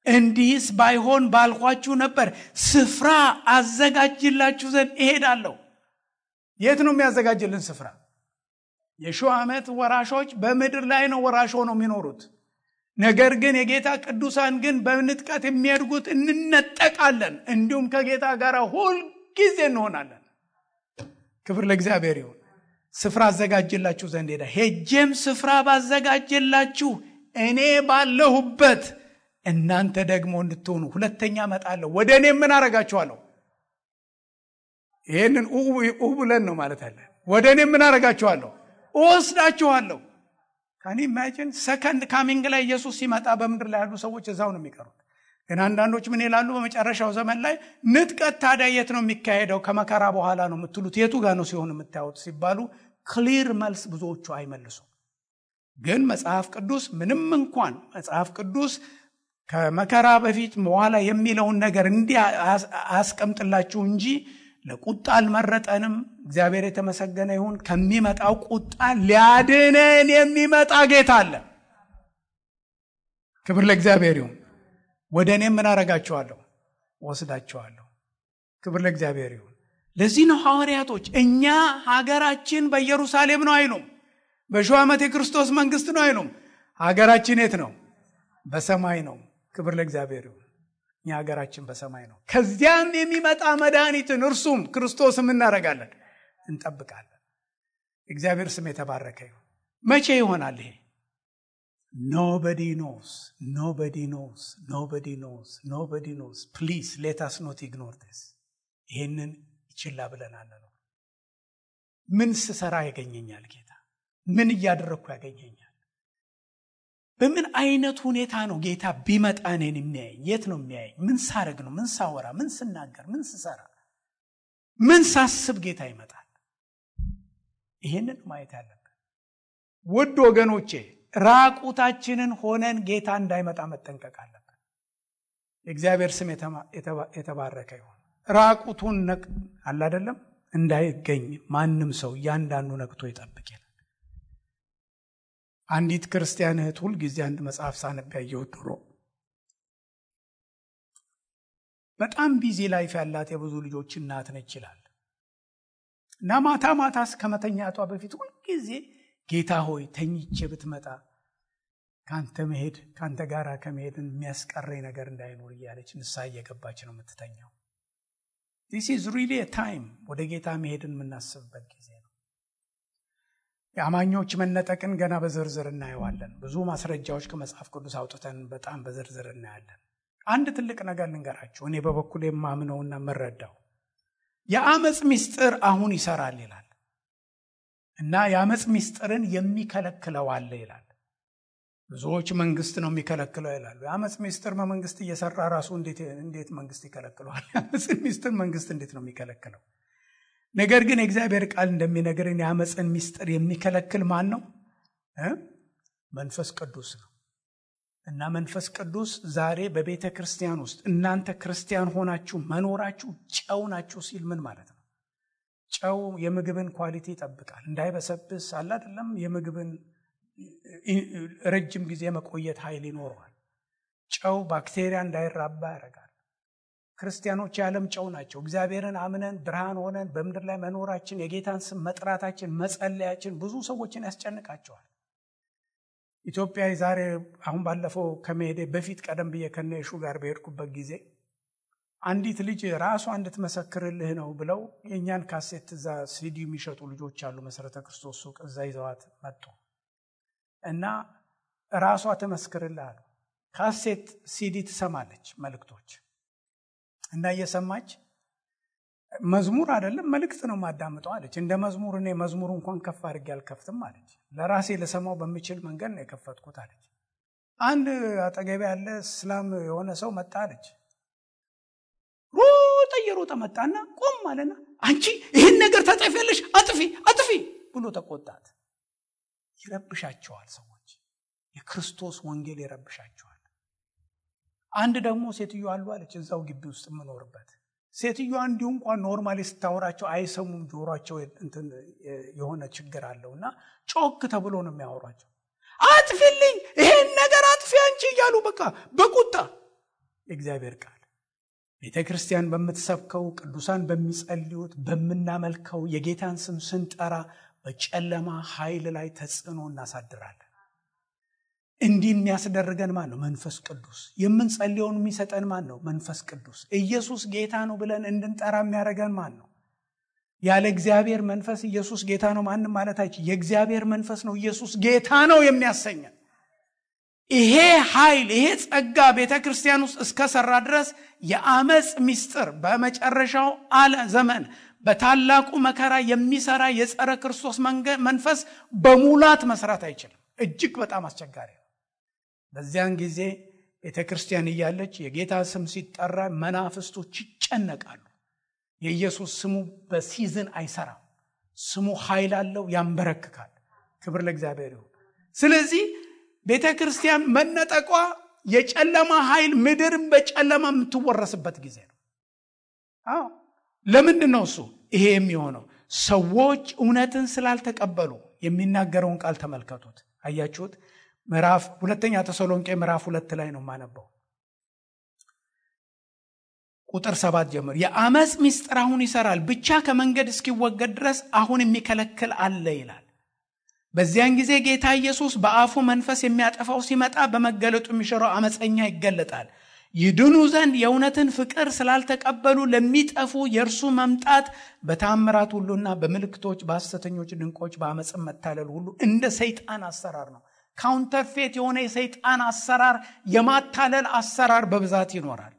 እንዲህስ ባይሆን ባልኳችሁ ነበር። ስፍራ አዘጋጅላችሁ ዘንድ እሄዳለሁ። የት ነው የሚያዘጋጅልን ስፍራ? የ1000 ዓመት ወራሾች በምድር ላይ ነው ወራሽ ሆነው የሚኖሩት። ነገር ግን የጌታ ቅዱሳን ግን በንጥቀት የሚያድጉት እንነጠቃለን፣ እንዲሁም ከጌታ ጋር ሁል ጊዜ እንሆናለን። ክብር ለእግዚአብሔር ይሁን። ስፍራ አዘጋጅላችሁ ዘንድ ሄጄም ስፍራ ባዘጋጅላችሁ እኔ ባለሁበት እናንተ ደግሞ እንድትሆኑ ሁለተኛ እመጣለሁ፣ ወደ እኔ ምን አረጋችኋለሁ? ይሄንን ብለን ነው ማለት አለ። ወደ እኔ ምን አረጋችኋለሁ? እወስዳችኋለሁ። ካን ኢማጂን ሰከንድ ካሚንግ ላይ ኢየሱስ ሲመጣ በምድር ላይ ያሉ ሰዎች እዛው ነው የሚቀሩት። ግን አንዳንዶች ምን ይላሉ? በመጨረሻው ዘመን ላይ ንጥቀት ታዲያ የት ነው የሚካሄደው? ከመከራ በኋላ ነው የምትሉት፣ የቱ ጋር ነው ሲሆን የምታዩት ሲባሉ ክሊር መልስ ብዙዎቹ አይመልሱም። ግን መጽሐፍ ቅዱስ ምንም እንኳን መጽሐፍ ቅዱስ ከመከራ በፊት በኋላ የሚለውን ነገር እንዲህ አስቀምጥላችሁ እንጂ ለቁጣ አልመረጠንም። እግዚአብሔር የተመሰገነ ይሁን። ከሚመጣው ቁጣ ሊያድነን የሚመጣ ጌታ አለ። ክብር ለእግዚአብሔር ይሁን። ወደ እኔ ምን አረጋቸዋለሁ? ወስዳቸዋለሁ። ክብር ለእግዚአብሔር ይሁን። ለዚህ ነው ሐዋርያቶች እኛ ሀገራችን በኢየሩሳሌም ነው አይሉም፣ በሺህ ዓመት የክርስቶስ መንግስት ነው አይሉም። ሀገራችን የት ነው? በሰማይ ነው። ክብር ለእግዚአብሔር ይሁን። እኛ ሀገራችን በሰማይ ነው። ከዚያም የሚመጣ መድኃኒትን እርሱም ክርስቶስም እናደርጋለን፣ እንጠብቃለን። እግዚአብሔር ስም የተባረከ ይሁን። መቼ ይሆናል ይሄ? Nobody knows. Nobody knows. Nobody knows. Nobody knows. Please let us not ignore this. ይሄንን ይችላ ብለናል ነው። ምን ስሰራ ያገኘኛል ጌታ? ምን እያደረኩ ያገኘኛል? በምን አይነት ሁኔታ ነው ጌታ ቢመጣ እኔን የሚያየኝ? የት ነው የሚያየኝ? ምን ሳረግ ነው? ምን ሳወራ? ምን ስናገር? ምን ስሰራ? ምን ሳስብ ጌታ ይመጣል? ይሄንን ማየት ያለብን ውድ ወገኖቼ። ራቁታችንን ሆነን ጌታ እንዳይመጣ መጠንቀቅ አለብን። የእግዚአብሔር ስም የተባረከ ይሁን። ራቁቱን አለ አይደለም እንዳይገኝ ማንም ሰው እያንዳንዱ ነቅቶ ይጠብቅ ይላል። አንዲት ክርስቲያን እህት ሁል ጊዜ አንድ መጽሐፍ ሳነብ ያየሁት ድሮ በጣም ቢዚ ላይፍ ያላት የብዙ ልጆች እናት ነች ይላል እና ማታ ማታ ከመተኛቷ በፊት ሁል ጊዜ ጌታ ሆይ ተኝቼ ብትመጣ ካንተ መሄድ ካንተ ጋር ከመሄድን የሚያስቀረኝ ነገር እንዳይኖር እያለች ንስሐ እየገባች ነው የምትተኛው። This is really a time ወደ ጌታ መሄድን የምናስብበት ጊዜ ነው። የአማኞች መነጠቅን ገና በዝርዝር እናየዋለን። ብዙ ማስረጃዎች ከመጽሐፍ ቅዱስ አውጥተን በጣም በዝርዝር እናያለን። አንድ ትልቅ ነገር ልንገራችሁ፣ እኔ በበኩሌ የማምነውና የምረዳው የአመጽ ምስጢር አሁን ይሰራል ይላል እና የአመጽ ምስጢርን የሚከለክለው አለ ይላል። ብዙዎች መንግስት ነው የሚከለክለው ይላሉ። የአመጽ ምስጢር በመንግስት እየሰራ ራሱ እንዴት መንግስት ይከለክለዋል? የአመጽ ምስጢር መንግስት እንዴት ነው የሚከለክለው? ነገር ግን የእግዚአብሔር ቃል እንደሚነግረን የአመጽን ምስጢር የሚከለክል ማን ነው? መንፈስ ቅዱስ ነው። እና መንፈስ ቅዱስ ዛሬ በቤተ ክርስቲያን ውስጥ እናንተ ክርስቲያን ሆናችሁ መኖራችሁ ጨው ናችሁ ሲል ምን ማለት ነው? ጨው የምግብን ኳሊቲ ይጠብቃል፣ እንዳይበሰብስ አለ አይደለም። የምግብን ረጅም ጊዜ መቆየት ኃይል ይኖረዋል። ጨው ባክቴሪያ እንዳይራባ ያደርጋል። ክርስቲያኖች የዓለም ጨው ናቸው። እግዚአብሔርን አምነን ብርሃን ሆነን በምድር ላይ መኖራችን፣ የጌታን ስም መጥራታችን፣ መጸለያችን ብዙ ሰዎችን ያስጨንቃቸዋል። ኢትዮጵያ ዛሬ አሁን ባለፈው ከመሄዴ በፊት ቀደም ብዬ ከነሹ ጋር በሄድኩበት ጊዜ አንዲት ልጅ ራሷ እንድትመሰክርልህ ነው ብለው የኛን ካሴት እዛ ሲዲ የሚሸጡ ልጆች አሉ፣ መሰረተ ክርስቶስ ሱቅ፣ እዛ ይዘዋት መጡ እና ራሷ ተመስክርልህ አሉ። ካሴት ሲዲ ትሰማለች መልእክቶች እና እየሰማች መዝሙር አይደለም መልእክት ነው ማዳምጠው አለች። እንደ መዝሙር እኔ መዝሙር እንኳን ከፍ አድርጌ አልከፍትም አለች። ለራሴ ለሰማው በሚችል መንገድ ነው የከፈትኩት አለች። አንድ አጠገቤ ያለ እስላም የሆነ ሰው መጣ አለች። ሮጠ መጣና ቆም አለና አንቺ ይሄን ነገር ታጠፊያለሽ፣ አጥፊ ብሎ ተቆጣት። ይረብሻቸዋል ሰዎች፣ የክርስቶስ ወንጌል ይረብሻቸዋል። አንድ ደግሞ ሴትዮ አሉ አለች እዛው ግቢ ውስጥ የምኖርበት ሴትዮዋ እንዲሁ እንኳን ኖርማሊ ስታወራቸው አይሰሙም፣ ጆሮአቸው እንትን የሆነ ችግር አለውና ጮክ ተብሎ ነው የሚያወራቸው። አጥፊልኝ ይሄን ነገር አጥፊ አንቺ እያሉ በቃ በቁጣ የእግዚአብሔር ቃል ቤተክርስቲያን በምትሰብከው ቅዱሳን በሚጸልዩት በመናመልከው የጌታን ስም ስንጠራ በጨለማ ኃይል ላይ ተጽዕኖ እናሳድራለን። እንዲህ የሚያስደርገን ማን ነው? መንፈስ ቅዱስ። የምንጸልየውን የሚሰጠን ማን ነው? መንፈስ ቅዱስ። ኢየሱስ ጌታ ነው ብለን እንድንጠራ የሚያደርገን ማን ነው? ያለ እግዚአብሔር መንፈስ ኢየሱስ ጌታ ነው ማንም ማለት አይችልም። የእግዚአብሔር መንፈስ ነው ኢየሱስ ጌታ ነው የሚያሰኘን። ይሄ ኃይል ይሄ ጸጋ ቤተክርስቲያን ውስጥ እስከሰራ ድረስ የአመጽ ምስጢር በመጨረሻው ዘመን በታላቁ መከራ የሚሰራ የጸረ ክርስቶስ መንፈስ በሙላት መስራት አይችልም። እጅግ በጣም አስቸጋሪ ነው። በዚያን ጊዜ ቤተክርስቲያን እያለች የጌታ ስም ሲጠራ መናፍስቶች ይጨነቃሉ። የኢየሱስ ስሙ በሲዝን አይሰራም። ስሙ ኃይል አለው፣ ያንበረክካል። ክብር ለእግዚአብሔር ይሁን። ስለዚህ ቤተክርስቲያን መነጠቋ የጨለማ ኃይል ምድርን በጨለማ የምትወረስበት ጊዜ ነው። ለምንድን ነው እሱ ይሄ የሚሆነው? ሰዎች እውነትን ስላልተቀበሉ። የሚናገረውን ቃል ተመልከቱት። አያችሁት? ሁለተኛ ተሰሎንቄ ምዕራፍ 2 ላይ ነው የማነበው። ቁጥር 7 ጀምሮ የአመጽ ምስጢር አሁን ይሰራል፣ ብቻ ከመንገድ እስኪወገድ ድረስ አሁን የሚከለክል አለ ይላል። በዚያን ጊዜ ጌታ ኢየሱስ በአፉ መንፈስ የሚያጠፋው ሲመጣ በመገለጡ የሚሽረው አመፀኛ ይገለጣል። ይድኑ ዘንድ የእውነትን ፍቅር ስላልተቀበሉ ለሚጠፉ የእርሱ መምጣት በታምራት ሁሉና በምልክቶች በሐሰተኞች ድንቆች በአመጽ መታለል ሁሉ እንደ ሰይጣን አሰራር ነው። ካውንተርፌት የሆነ የሰይጣን አሰራር፣ የማታለል አሰራር በብዛት ይኖራል።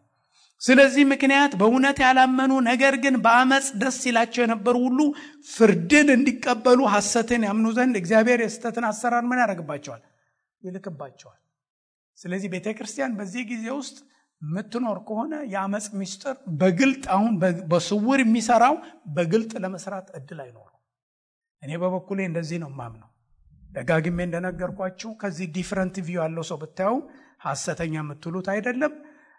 ስለዚህ ምክንያት በእውነት ያላመኑ ነገር ግን በአመጽ ደስ ይላቸው የነበሩ ሁሉ ፍርድን እንዲቀበሉ ሐሰትን ያምኑ ዘንድ እግዚአብሔር የስተትን አሰራር ምን ያደርግባቸዋል? ይልክባቸዋል። ስለዚህ ቤተክርስቲያን በዚህ ጊዜ ውስጥ የምትኖር ከሆነ የአመጽ ምስጢር በግልጥ አሁን በስውር የሚሰራው በግልጥ ለመስራት እድል አይኖረው። እኔ በበኩሌ እንደዚህ ነው ማምነው። ደጋግሜ እንደነገርኳችሁ ከዚህ ዲፈረንት ቪው ያለው ሰው ብታዩ ሐሰተኛ የምትሉት አይደለም።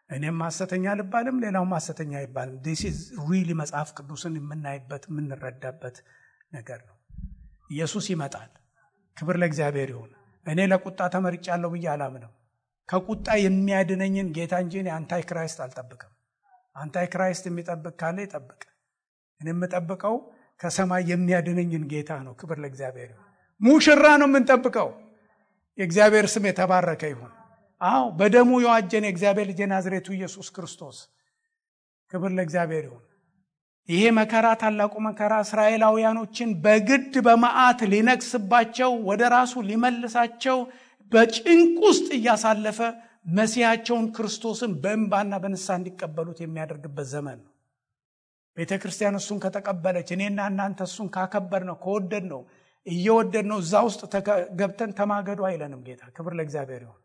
እኔም ሐሰተኛ ልባልም ሌላውም ሐሰተኛ አይባልም። this is really መጽሐፍ ቅዱስን የምናይበት የምንረዳበት ነገር ነው። ኢየሱስ ይመጣል። ክብር ለእግዚአብሔር ይሁን። እኔ ለቁጣ ተመርጫለሁ ብዬ አላምንም። ከቁጣ የሚያድነኝን ጌታ እንጂ አንታይ ክራይስት አልጠብቅም። አንታይ ክራይስት የሚጠብቅ ካለ ይጠብቅ። እኔ የምጠብቀው ከሰማይ የሚያድነኝን ጌታ ነው። ክብር ለእግዚአብሔር ይሁን። ሙሽራ ነው የምንጠብቀው። የእግዚአብሔር ስም የተባረከ ይሁን። በደሙ የዋጀን የእግዚአብሔር ልጅ ናዝሬቱ ኢየሱስ ክርስቶስ። ክብር ለእግዚአብሔር ይሁን። ይሄ መከራ፣ ታላቁ መከራ እስራኤላውያኖችን በግድ በመዓት ሊነክስባቸው ወደ ራሱ ሊመልሳቸው በጭንቅ ውስጥ እያሳለፈ መሲያቸውን ክርስቶስን በእንባና በንስሐ እንዲቀበሉት የሚያደርግበት ዘመን ነው። ቤተክርስቲያን እሱን ከተቀበለች፣ እኔና እናንተ እሱን ካከበርነው ከወደድነው እየወደድነው እዛ ውስጥ ገብተን ተማገዱ አይለንም ጌታ። ክብር ለእግዚአብሔር ይሁን።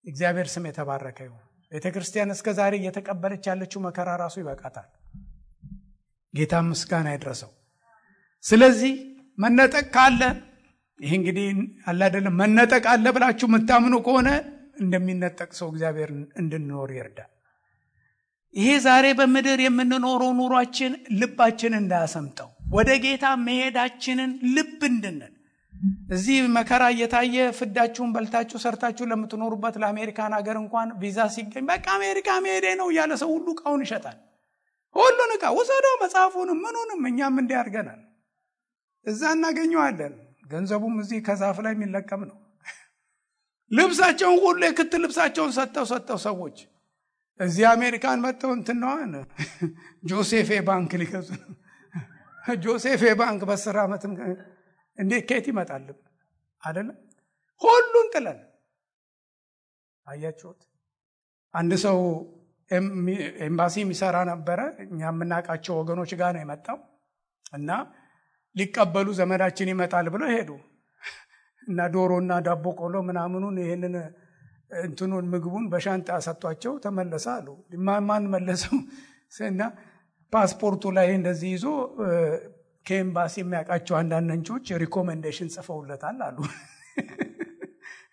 እግዚአብሔር ስም የተባረከ ይሁን። ቤተክርስቲያን እስከዛሬ እየተቀበለች ያለችው መከራ ራሱ ይበቃታል። ጌታ ምስጋና ይድረሰው። ስለዚህ መነጠቅ ካለ ይሄ እንግዲህ አለ አይደለም፣ መነጠቅ አለ ብላችሁ የምታምኑ ከሆነ እንደሚነጠቅ ሰው እግዚአብሔር እንድንኖር ይርዳል። ይሄ ዛሬ በምድር የምንኖረው ኑሯችን ልባችን እንዳያሰምጠው፣ ወደ ጌታ መሄዳችንን ልብ እንድንል፣ እዚህ መከራ እየታየ ፍዳችሁን በልታችሁ ሰርታችሁ ለምትኖሩበት ለአሜሪካን ሀገር እንኳን ቪዛ ሲገኝ በቃ አሜሪካ መሄዴ ነው እያለ ሰው ሁሉ ዕቃውን ይሸጣል። ሁሉን ዕቃ ወሰደው፣ መጽሐፉንም ምኑንም እኛም እንዲህ አድርገናል። እዛ እናገኘዋለን። ገንዘቡም እዚህ ከዛፍ ላይ የሚለቀም ነው። ልብሳቸውን ሁሉ የክት ልብሳቸውን ሰጥተው ሰዎች እዚህ አሜሪካን መጥተው እንትነዋን ጆሴፌ ባንክ ሊከዙ ጆሴፌ ባንክ በ10 ዓመት እንዴት ከየት ይመጣል አይደለም? ሁሉን ጥለን አያችሁት። አንድ ሰው ኤምባሲ የሚሰራ ነበረ። እኛ የምናውቃቸው ወገኖች ጋር ነው የመጣው እና ሊቀበሉ ዘመዳችን ይመጣል ብለው ሄዱ እና ዶሮና ዳቦ ቆሎ ምናምኑን ይሄንን እንትኑን ምግቡን በሻንጣ ሰጥቷቸው ተመለሰ አሉ። ማን መለሰው? እና ፓስፖርቱ ላይ እንደዚህ ይዞ ከኤምባሲ የሚያውቃቸው አንዳንድ ነንቾች ሪኮሜንዴሽን ጽፈውለታል አሉ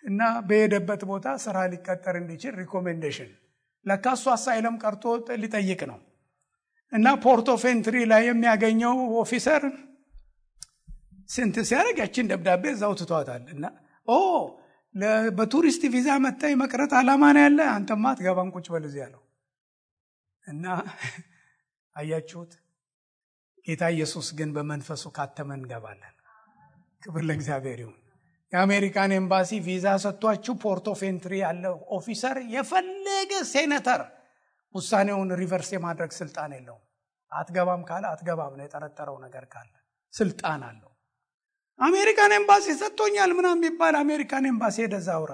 እና በሄደበት ቦታ ስራ ሊቀጠር እንዲችል ሪኮሜንዴሽን ለካሱ አሳይለም ቀርቶ ሊጠይቅ ነው እና ፖርት ኦፍ ኤንትሪ ላይ የሚያገኘው ኦፊሰር ስንት ሲያደርግ ያችን ደብዳቤ እዛው ትቷታል እና በቱሪስት ቪዛ መጣይ መቅረት አላማ ነው ያለ፣ አንተማ አትገባም ቁጭ በል እዚህ ያለው እና አያችሁት። ጌታ ኢየሱስ ግን በመንፈሱ ካተመን እንገባለን። ክብር ለእግዚአብሔር ይሁን። የአሜሪካን ኤምባሲ ቪዛ ሰጥቷችሁ ፖርት ኦፍ ኤንትሪ ያለው ኦፊሰር የፈለገ ሴኔተር ውሳኔውን ሪቨርስ የማድረግ ስልጣን የለውም። አትገባም ካለ አትገባም ነው። የጠረጠረው ነገር ካለ ስልጣን አለው። አሜሪካን ኤምባሲ ሰጥቶኛል ምናምን የሚባል አሜሪካን ኤምባሲ ሄደዛ አውራ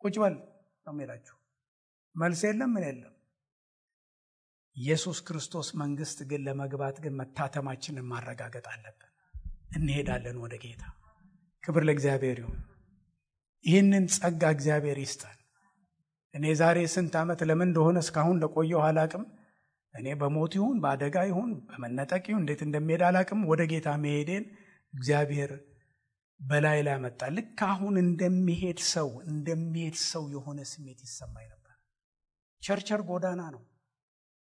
ቁጭ በል ነው የሚላችሁ። መልስ የለም ምን የለም። ኢየሱስ ክርስቶስ መንግስት ግን ለመግባት ግን መታተማችንን ማረጋገጥ አለብን። እንሄዳለን ወደ ጌታ። ክብር ለእግዚአብሔር ይሁን። ይህንን ጸጋ እግዚአብሔር ይስጠን። እኔ ዛሬ ስንት ዓመት ለምን እንደሆነ እስካሁን ለቆየው አላቅም። እኔ በሞት ይሁን በአደጋ ይሁን በመነጠቅ ይሁን እንዴት እንደሚሄድ አላቅም። ወደ ጌታ መሄዴን እግዚአብሔር በላይ ላይ መጣ። ልክ አሁን እንደሚሄድ ሰው የሆነ ስሜት ይሰማኝ ነበር። ቸርቸር ጎዳና ነው።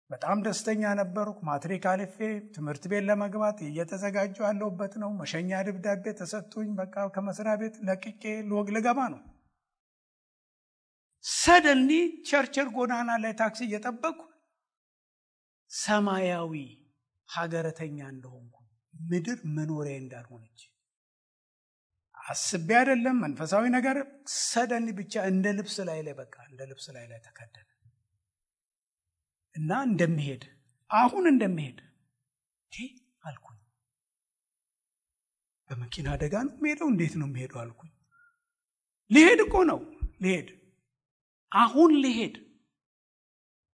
በጣም ደስተኛ ነበርኩ። ማትሪክ አልፌ ትምህርት ቤት ለመግባት እየተዘጋጀሁ ያለሁበት ነው። መሸኛ ደብዳቤ ተሰጥቶኝ በቃ ከመስሪያ ቤት ለቅቄ ልገባ ነው። ሰደንሊ ቸርቸር ጎዳና ላይ ታክሲ እየጠበቅኩ ሰማያዊ ሀገረተኛ እንደሆንኩ ምድር መኖሪያ እንዳልሆነች አስቤ አይደለም መንፈሳዊ ነገር ሰደንሊ ብቻ እንደ ልብስ ላይ ተከደነ እና አሁን እንደሚሄድ አልኩኝ። በመኪና አደጋ ነው የምሄደው? እንዴት ነው የምሄደው አልኩኝ። ልሄድ እኮ ነው አሁን ልሄድ።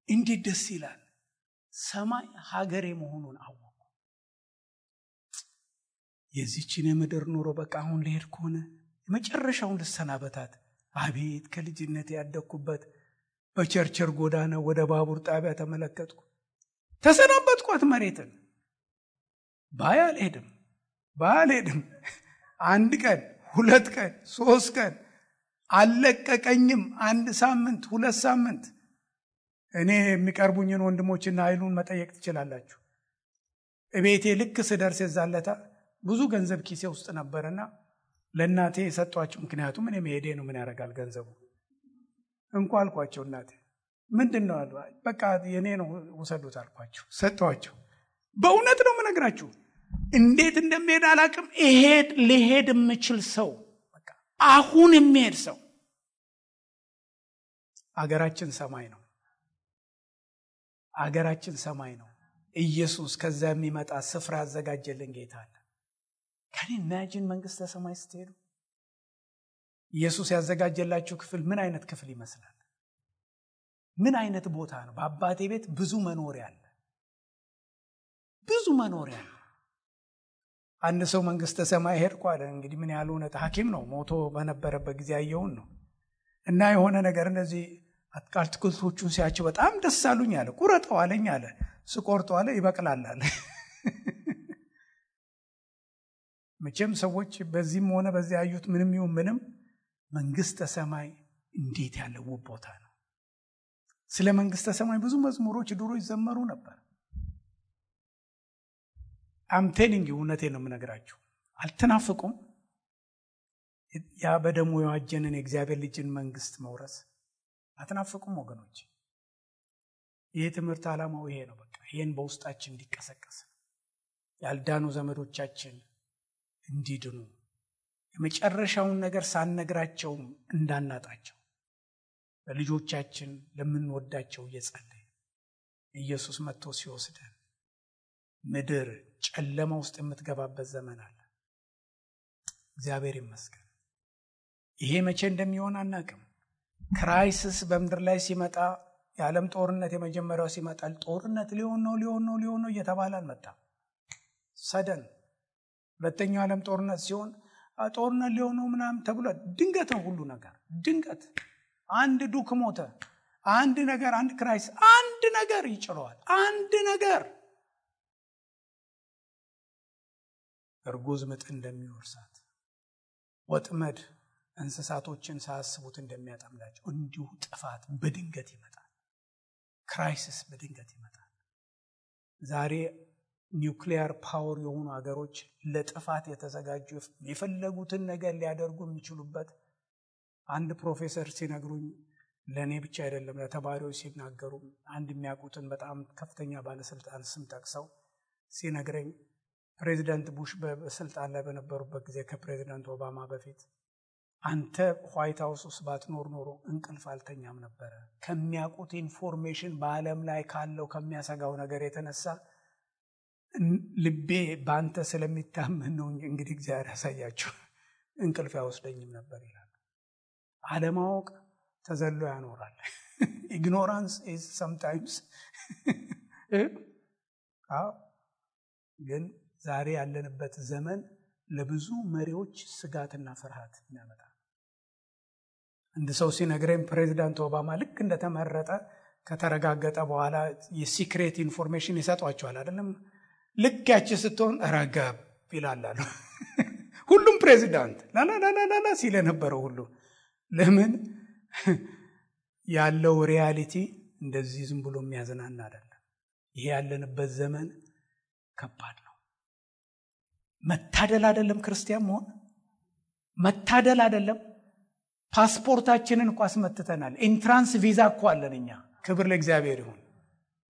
እንዴት ደስ ይላል! ሰማይ ሀገሬ መሆኑን አወቅኩ። የዚህችን የምድር ኑሮ በቃ አሁን ልሄድ ከሆነ የመጨረሻውን ልሰናበታት። አቤት ከልጅነት ያደግኩበት በቸርቸር ጎዳና ወደ ባቡር ጣቢያ ተመለከትኩ። ተሰናበትኳት መሬትን። ባያልሄድም 1 ቀን 2 ቀን 3 ቀን አልለቀቀኝም። 1 ሳምንት 2 ሳምንት። እኔ የሚቀርቡኝን ወንድሞችና ኃይሉን መጠየቅ ትችላላችሁ። እቤቴ ልክ ስደርስ የዛለታ ብዙ ገንዘብ ኪሴ ውስጥ ነበርና ለእናቴ የሰጧቸው። ምክንያቱም እኔ መሄዴ ነው፣ ምን ያደርጋል ገንዘቡ እንኳ አልኳቸው። እናቴ ምንድነው አሉ። በቃ የኔ ነው ወሰዱት አልኳቸው፣ ሰጧቸው። በእውነት ነው የምነግራችሁ። እንዴት እንደምሄድ አላቅም። ልሄድ የምችል ሰው በቃ አሁን የሚሄድ ሰው። አገራችን ሰማይ ነው። ኢየሱስ ከዛ የሚመጣ ስፍራ አዘጋጀልን ጌታ አለ። ከኔ ኢማጂን መንግስተ ሰማይ ስትሄዱ ኢየሱስ ያዘጋጀላችሁ ክፍል ምን አይነት ክፍል ይመስላል? ምን አይነት ቦታ ነው? በአባቴ ቤት ብዙ መኖሪያ አለ። አንድ ሰው መንግስተ ሰማይ ሄድኩ አለ። እንግዲህ ምን ያህል እውነት ሐኪም ነው፣ ሞቶ በነበረበት ጊዜ ያየውን ነው። እና የሆነ ነገር እንደዚህ አትክልቶቹን ሲያቸው በጣም ደስ አሉኝ አለ። ቁረጠው አለኝ አለ። ስቆርጠው አለ ይበቅላል አለ። መቼም ሰዎች በዚህም ሆነ በዚያ ያዩት ምንም መንግስተ ሰማይ እንዴት ያለ ውብ ቦታ ነው። ስለ መንግስተ ሰማይ ብዙ መዝሙሮች ድሮ ይዘመሩ ነበር። አምቴሊንግ እውነቴን ነው የምነግራችሁ። አልተናፍቁም? ያ በደሙ የዋጀንን የእግዚአብሔር ልጅን መንግስት መውረስ አትናፍቁም ወገኖች? ይህ ትምህርት ዓላማው ይሄ ነው። በቃ ይሄን በውስጣችን እንዲቀሰቀስ፣ ያልዳኑ ዘመዶቻችን እንዲድኑ፣ የመጨረሻውን ነገር ሳንነግራቸው እንዳናጣቸው፣ ለልጆቻችን ለምንወዳቸው እየጸለይን ኢየሱስ መጥቶ ሲወስደን ምድር ጨለማ ውስጥ የምትገባበት ዘመን አለ። እግዚአብሔር ይመስገን። ይሄ መቼ እንደሚሆን አናውቅም። ክራይሲስ በምድር ላይ ሲመጣ፣ የዓለም ጦርነት የመጀመሪያው ሲመጣ ጦርነት ሊሆን ነው እየተባለ አልመጣም። ሰደን ሁለተኛው ዓለም ጦርነት ሲሆን ጦርነት ሊሆን ነው ምናምን ተብሎ ድንገት ነው ሁሉ ነገር። ድንገት አንድ ዱክ ሞተ፣ አንድ ነገር፣ አንድ ክራይሲስ፣ አንድ ነገር ይጭረዋል። አንድ ነገር እርጉዝ ምጥ እንደሚወርሳት፣ ወጥመድ እንስሳቶችን ሳያስቡት እንደሚያጠምዳቸው እንዲሁ ጥፋት በድንገት ይመጣል። ክራይሲስ በድንገት ይመጣል። ዛሬ ኒውክሊየር ፓወር የሆኑ ሀገሮች ለጥፋት የተዘጋጁ የፈለጉትን ነገር ሊያደርጉ የሚችሉበት፣ አንድ ፕሮፌሰር ሲነግሩኝ፣ ለእኔ ብቻ አይደለም ለተማሪዎች ሲናገሩ፣ አንድ የሚያውቁትን በጣም ከፍተኛ ባለስልጣን ስም ጠቅሰው ሲነግረኝ፣ ፕሬዚዳንት ቡሽ በስልጣን ላይ በነበሩበት ጊዜ ከፕሬዚዳንት ኦባማ በፊት አንተ ዋይት ሃውስ ውስጥ ባትኖር ኖሮ እንቅልፍ አልተኛም ነበረ። ከሚያውቁት ኢንፎርሜሽን በዓለም ላይ ካለው ከሚያሰጋው ነገር የተነሳ ልቤ በአንተ ስለሚታመን ነው። እንግዲህ እግዚአብሔር ያሳያቸው፣ እንቅልፍ አይወስደኝም ነበር ይላል። አለማወቅ ተዘሎ ያኖራል። ኢግኖራንስ ኢዝ ሰምታይምስ ግን ዛሬ ያለንበት ዘመን ለብዙ መሪዎች ስጋትና ፍርሃት ያመጣል። አንድ ሰው ሲነግረኝ ፕሬዚዳንት ኦባማ ልክ እንደተመረጠ ከተረጋገጠ በኋላ የሲክሬት ኢንፎርሜሽን ይሰጧቸዋል አይደለም? ልክ ያቺ ስትሆን ረጋብ ይላሉ። ሁሉም ፕሬዚዳንት ላላላላላ ሲል የነበረው ሁሉ ለምን ያለው ሪያሊቲ እንደዚህ ዝም ብሎ የሚያዝናና አይደለም። ይሄ ያለንበት ዘመን ከባድ ነው። መታደል አይደለም ክርስቲያን መሆን መታደል አይደለም። ፓስፖርታችንን እንኳን አስመትተናል። ኢንትራንስ ቪዛ እኮ አለን እኛ። ክብር ለእግዚአብሔር ይሁን፣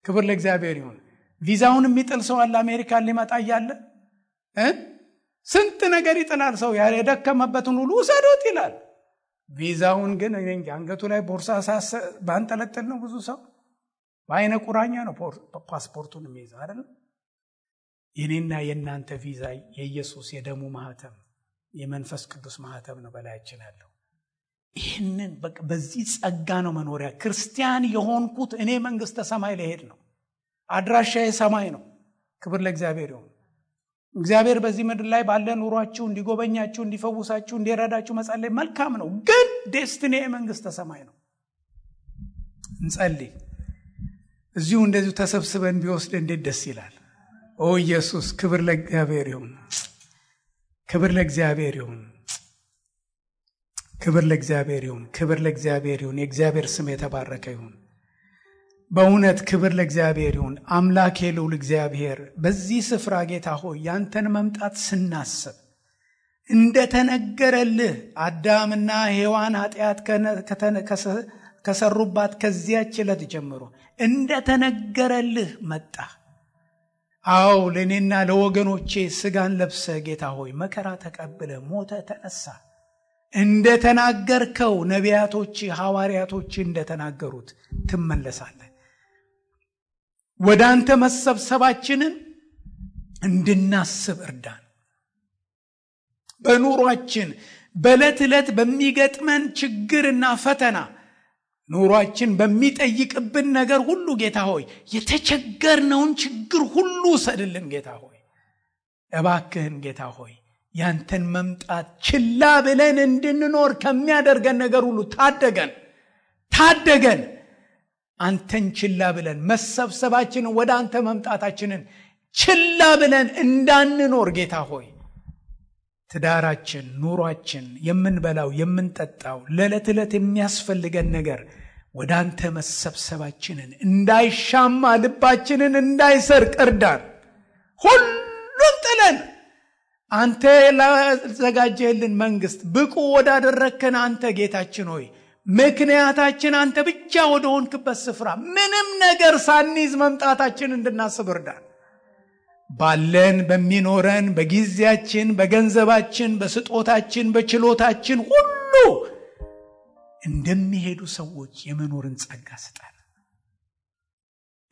ክብር ለእግዚአብሔር ይሁን። ቪዛውን የሚጥል ሰው አለ አሜሪካን ሊመጣ እያለ ስንት ነገር ይጥላል። ሰው የደከመበትን ሁሉ ውሰዶት ይላል። ቪዛውን ግን አንገቱ ላይ ቦርሳ ባንጠለጥል ነው ብዙ ሰው በአይነ ቁራኛ ነው ፓስፖርቱን የሚይዘው አይደል? የኔና የእናንተ ቪዛ የኢየሱስ የደሙ ማህተም የመንፈስ ቅዱስ ማህተም ነው በላያችን ያለው። ይህንን በዚህ ጸጋ ነው መኖሪያ። ክርስቲያን የሆንኩት እኔ መንግስተ ሰማይ ልሄድ ነው። አድራሻዬ ሰማይ ነው። ክብር ለእግዚአብሔር ይሁን። እግዚአብሔር በዚህ ምድር ላይ ባለ ኑሯችሁ እንዲጎበኛችሁ፣ እንዲፈውሳችሁ፣ እንዲረዳችሁ መጸለይ መልካም ነው። ግን ዴስቲኒ መንግስተ ሰማይ ነው። እንጸልይ። እዚሁ እንደዚሁ ተሰብስበን ቢወስድ እንዴት ደስ ይላል። ኦ ኢየሱስ፣ ክብር ለእግዚአብሔር ይሁን፣ ክብር ለእግዚአብሔር ይሁን፣ ክብር ለእግዚአብሔር ይሁን፣ ክብር ለእግዚአብሔር ይሁን። የእግዚአብሔር ስም የተባረከ ይሁን። በእውነት ክብር ለእግዚአብሔር ይሁን። አምላኬ ልዑል እግዚአብሔር በዚህ ስፍራ ጌታ ሆይ ያንተን መምጣት ስናስብ እንደተነገረልህ አዳምና ሔዋን ኃጢአት ከሰሩባት ከዚያች ዕለት ጀምሮ እንደተነገረልህ መጣ። አዎ ለእኔና ለወገኖቼ ስጋን ለብሰ ጌታ ሆይ መከራ ተቀብለ ሞተ ተነሳ። እንደተናገርከው ነቢያቶች ሐዋርያቶች እንደተናገሩት ትመለሳለህ። ወደ አንተ መሰብሰባችንን እንድናስብ እርዳን። በኑሯችን በዕለት ዕለት በሚገጥመን ችግርና ፈተና ኑሯችን በሚጠይቅብን ነገር ሁሉ ጌታ ሆይ የተቸገርነውን ችግር ሁሉ ሰድልን ጌታ ሆይ እባክህን ጌታ ሆይ ያንተን መምጣት ችላ ብለን እንድንኖር ከሚያደርገን ነገር ሁሉ ታደገን። አንተን ችላ ብለን መሰብሰባችንን ወደ አንተ መምጣታችንን ችላ ብለን እንዳንኖር ጌታ ሆይ ትዳራችን፣ ኑሯችን፣ የምንበላው የምንጠጣው ለዕለት ዕለት የሚያስፈልገን ነገር ወደ አንተ መሰብሰባችንን እንዳይሻማ ልባችንን እንዳይሰርቅ እርዳን። ሁሉን ጥለን አንተ ላዘጋጀህልን መንግስት ብቁ ወዳደረከን አንተ ጌታችን ሆይ ምክንያታችን አንተ ብቻ ወደ ሆንክበት ስፍራ ምንም ነገር ሳንይዝ መምጣታችን እንድናስብ እርዳን። ባለን በሚኖረን በጊዜያችን፣ በገንዘባችን፣ በስጦታችን፣ በችሎታችን ሁሉ እንደሚሄዱ ሰዎች የመኖርን ጸጋ ስጠን።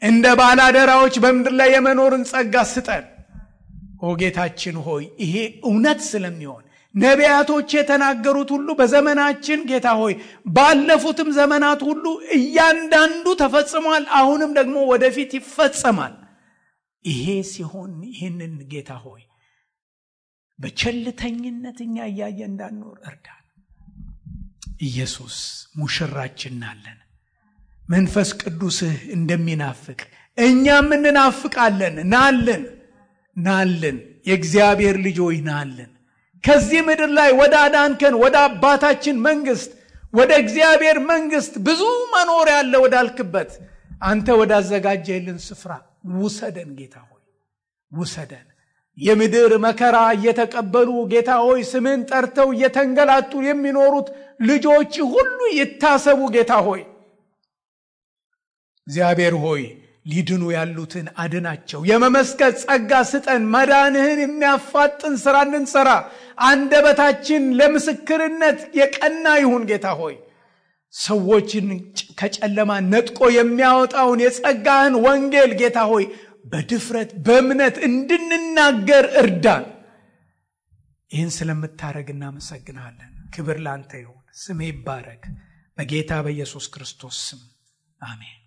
እንደ ባላደራዎች በምድር ላይ የመኖርን ጸጋ ስጠን። ኦ ጌታችን ሆይ ይሄ እውነት ስለሚሆን ነቢያቶች የተናገሩት ሁሉ በዘመናችን ጌታ ሆይ ባለፉትም ዘመናት ሁሉ እያንዳንዱ ተፈጽሟል። አሁንም ደግሞ ወደፊት ይፈጸማል። ይሄ ሲሆን ይህንን ጌታ ሆይ በቸልተኝነት እኛ እያየ እንዳንኖር እርዳን። ኢየሱስ ሙሽራችን ናለን። መንፈስ ቅዱስህ እንደሚናፍቅ እኛም እንናፍቃለን። ናልን የእግዚአብሔር ልጆች ናልን። ከዚህ ምድር ላይ ወደ አዳንከን ወደ አባታችን መንግስት ወደ እግዚአብሔር መንግስት ብዙ መኖር ያለ ወዳልክበት አንተ ወዳዘጋጀህልን ስፍራ ውሰደን ጌታ ሆይ ውሰደን። የምድር መከራ እየተቀበሉ ጌታ ሆይ ስምን ጠርተው እየተንገላቱ የሚኖሩት ልጆች ሁሉ ይታሰቡ ጌታ ሆይ እግዚአብሔር ሆይ ሊድኑ ያሉትን አድናቸው። የመመስከር ጸጋ ስጠን። መዳንህን የሚያፋጥን ስራ እንድንሰራ አንደበታችን ለምስክርነት የቀና ይሁን ጌታ ሆይ ሰዎችን ከጨለማ ነጥቆ የሚያወጣውን የጸጋህን ወንጌል ጌታ ሆይ በድፍረት በእምነት እንድንናገር እርዳን። ይህን ስለምታረግ እናመሰግናለን። ክብር ላንተ ይሁን። ስምህ ይባረክ። በጌታ በኢየሱስ ክርስቶስ ስም አሜን።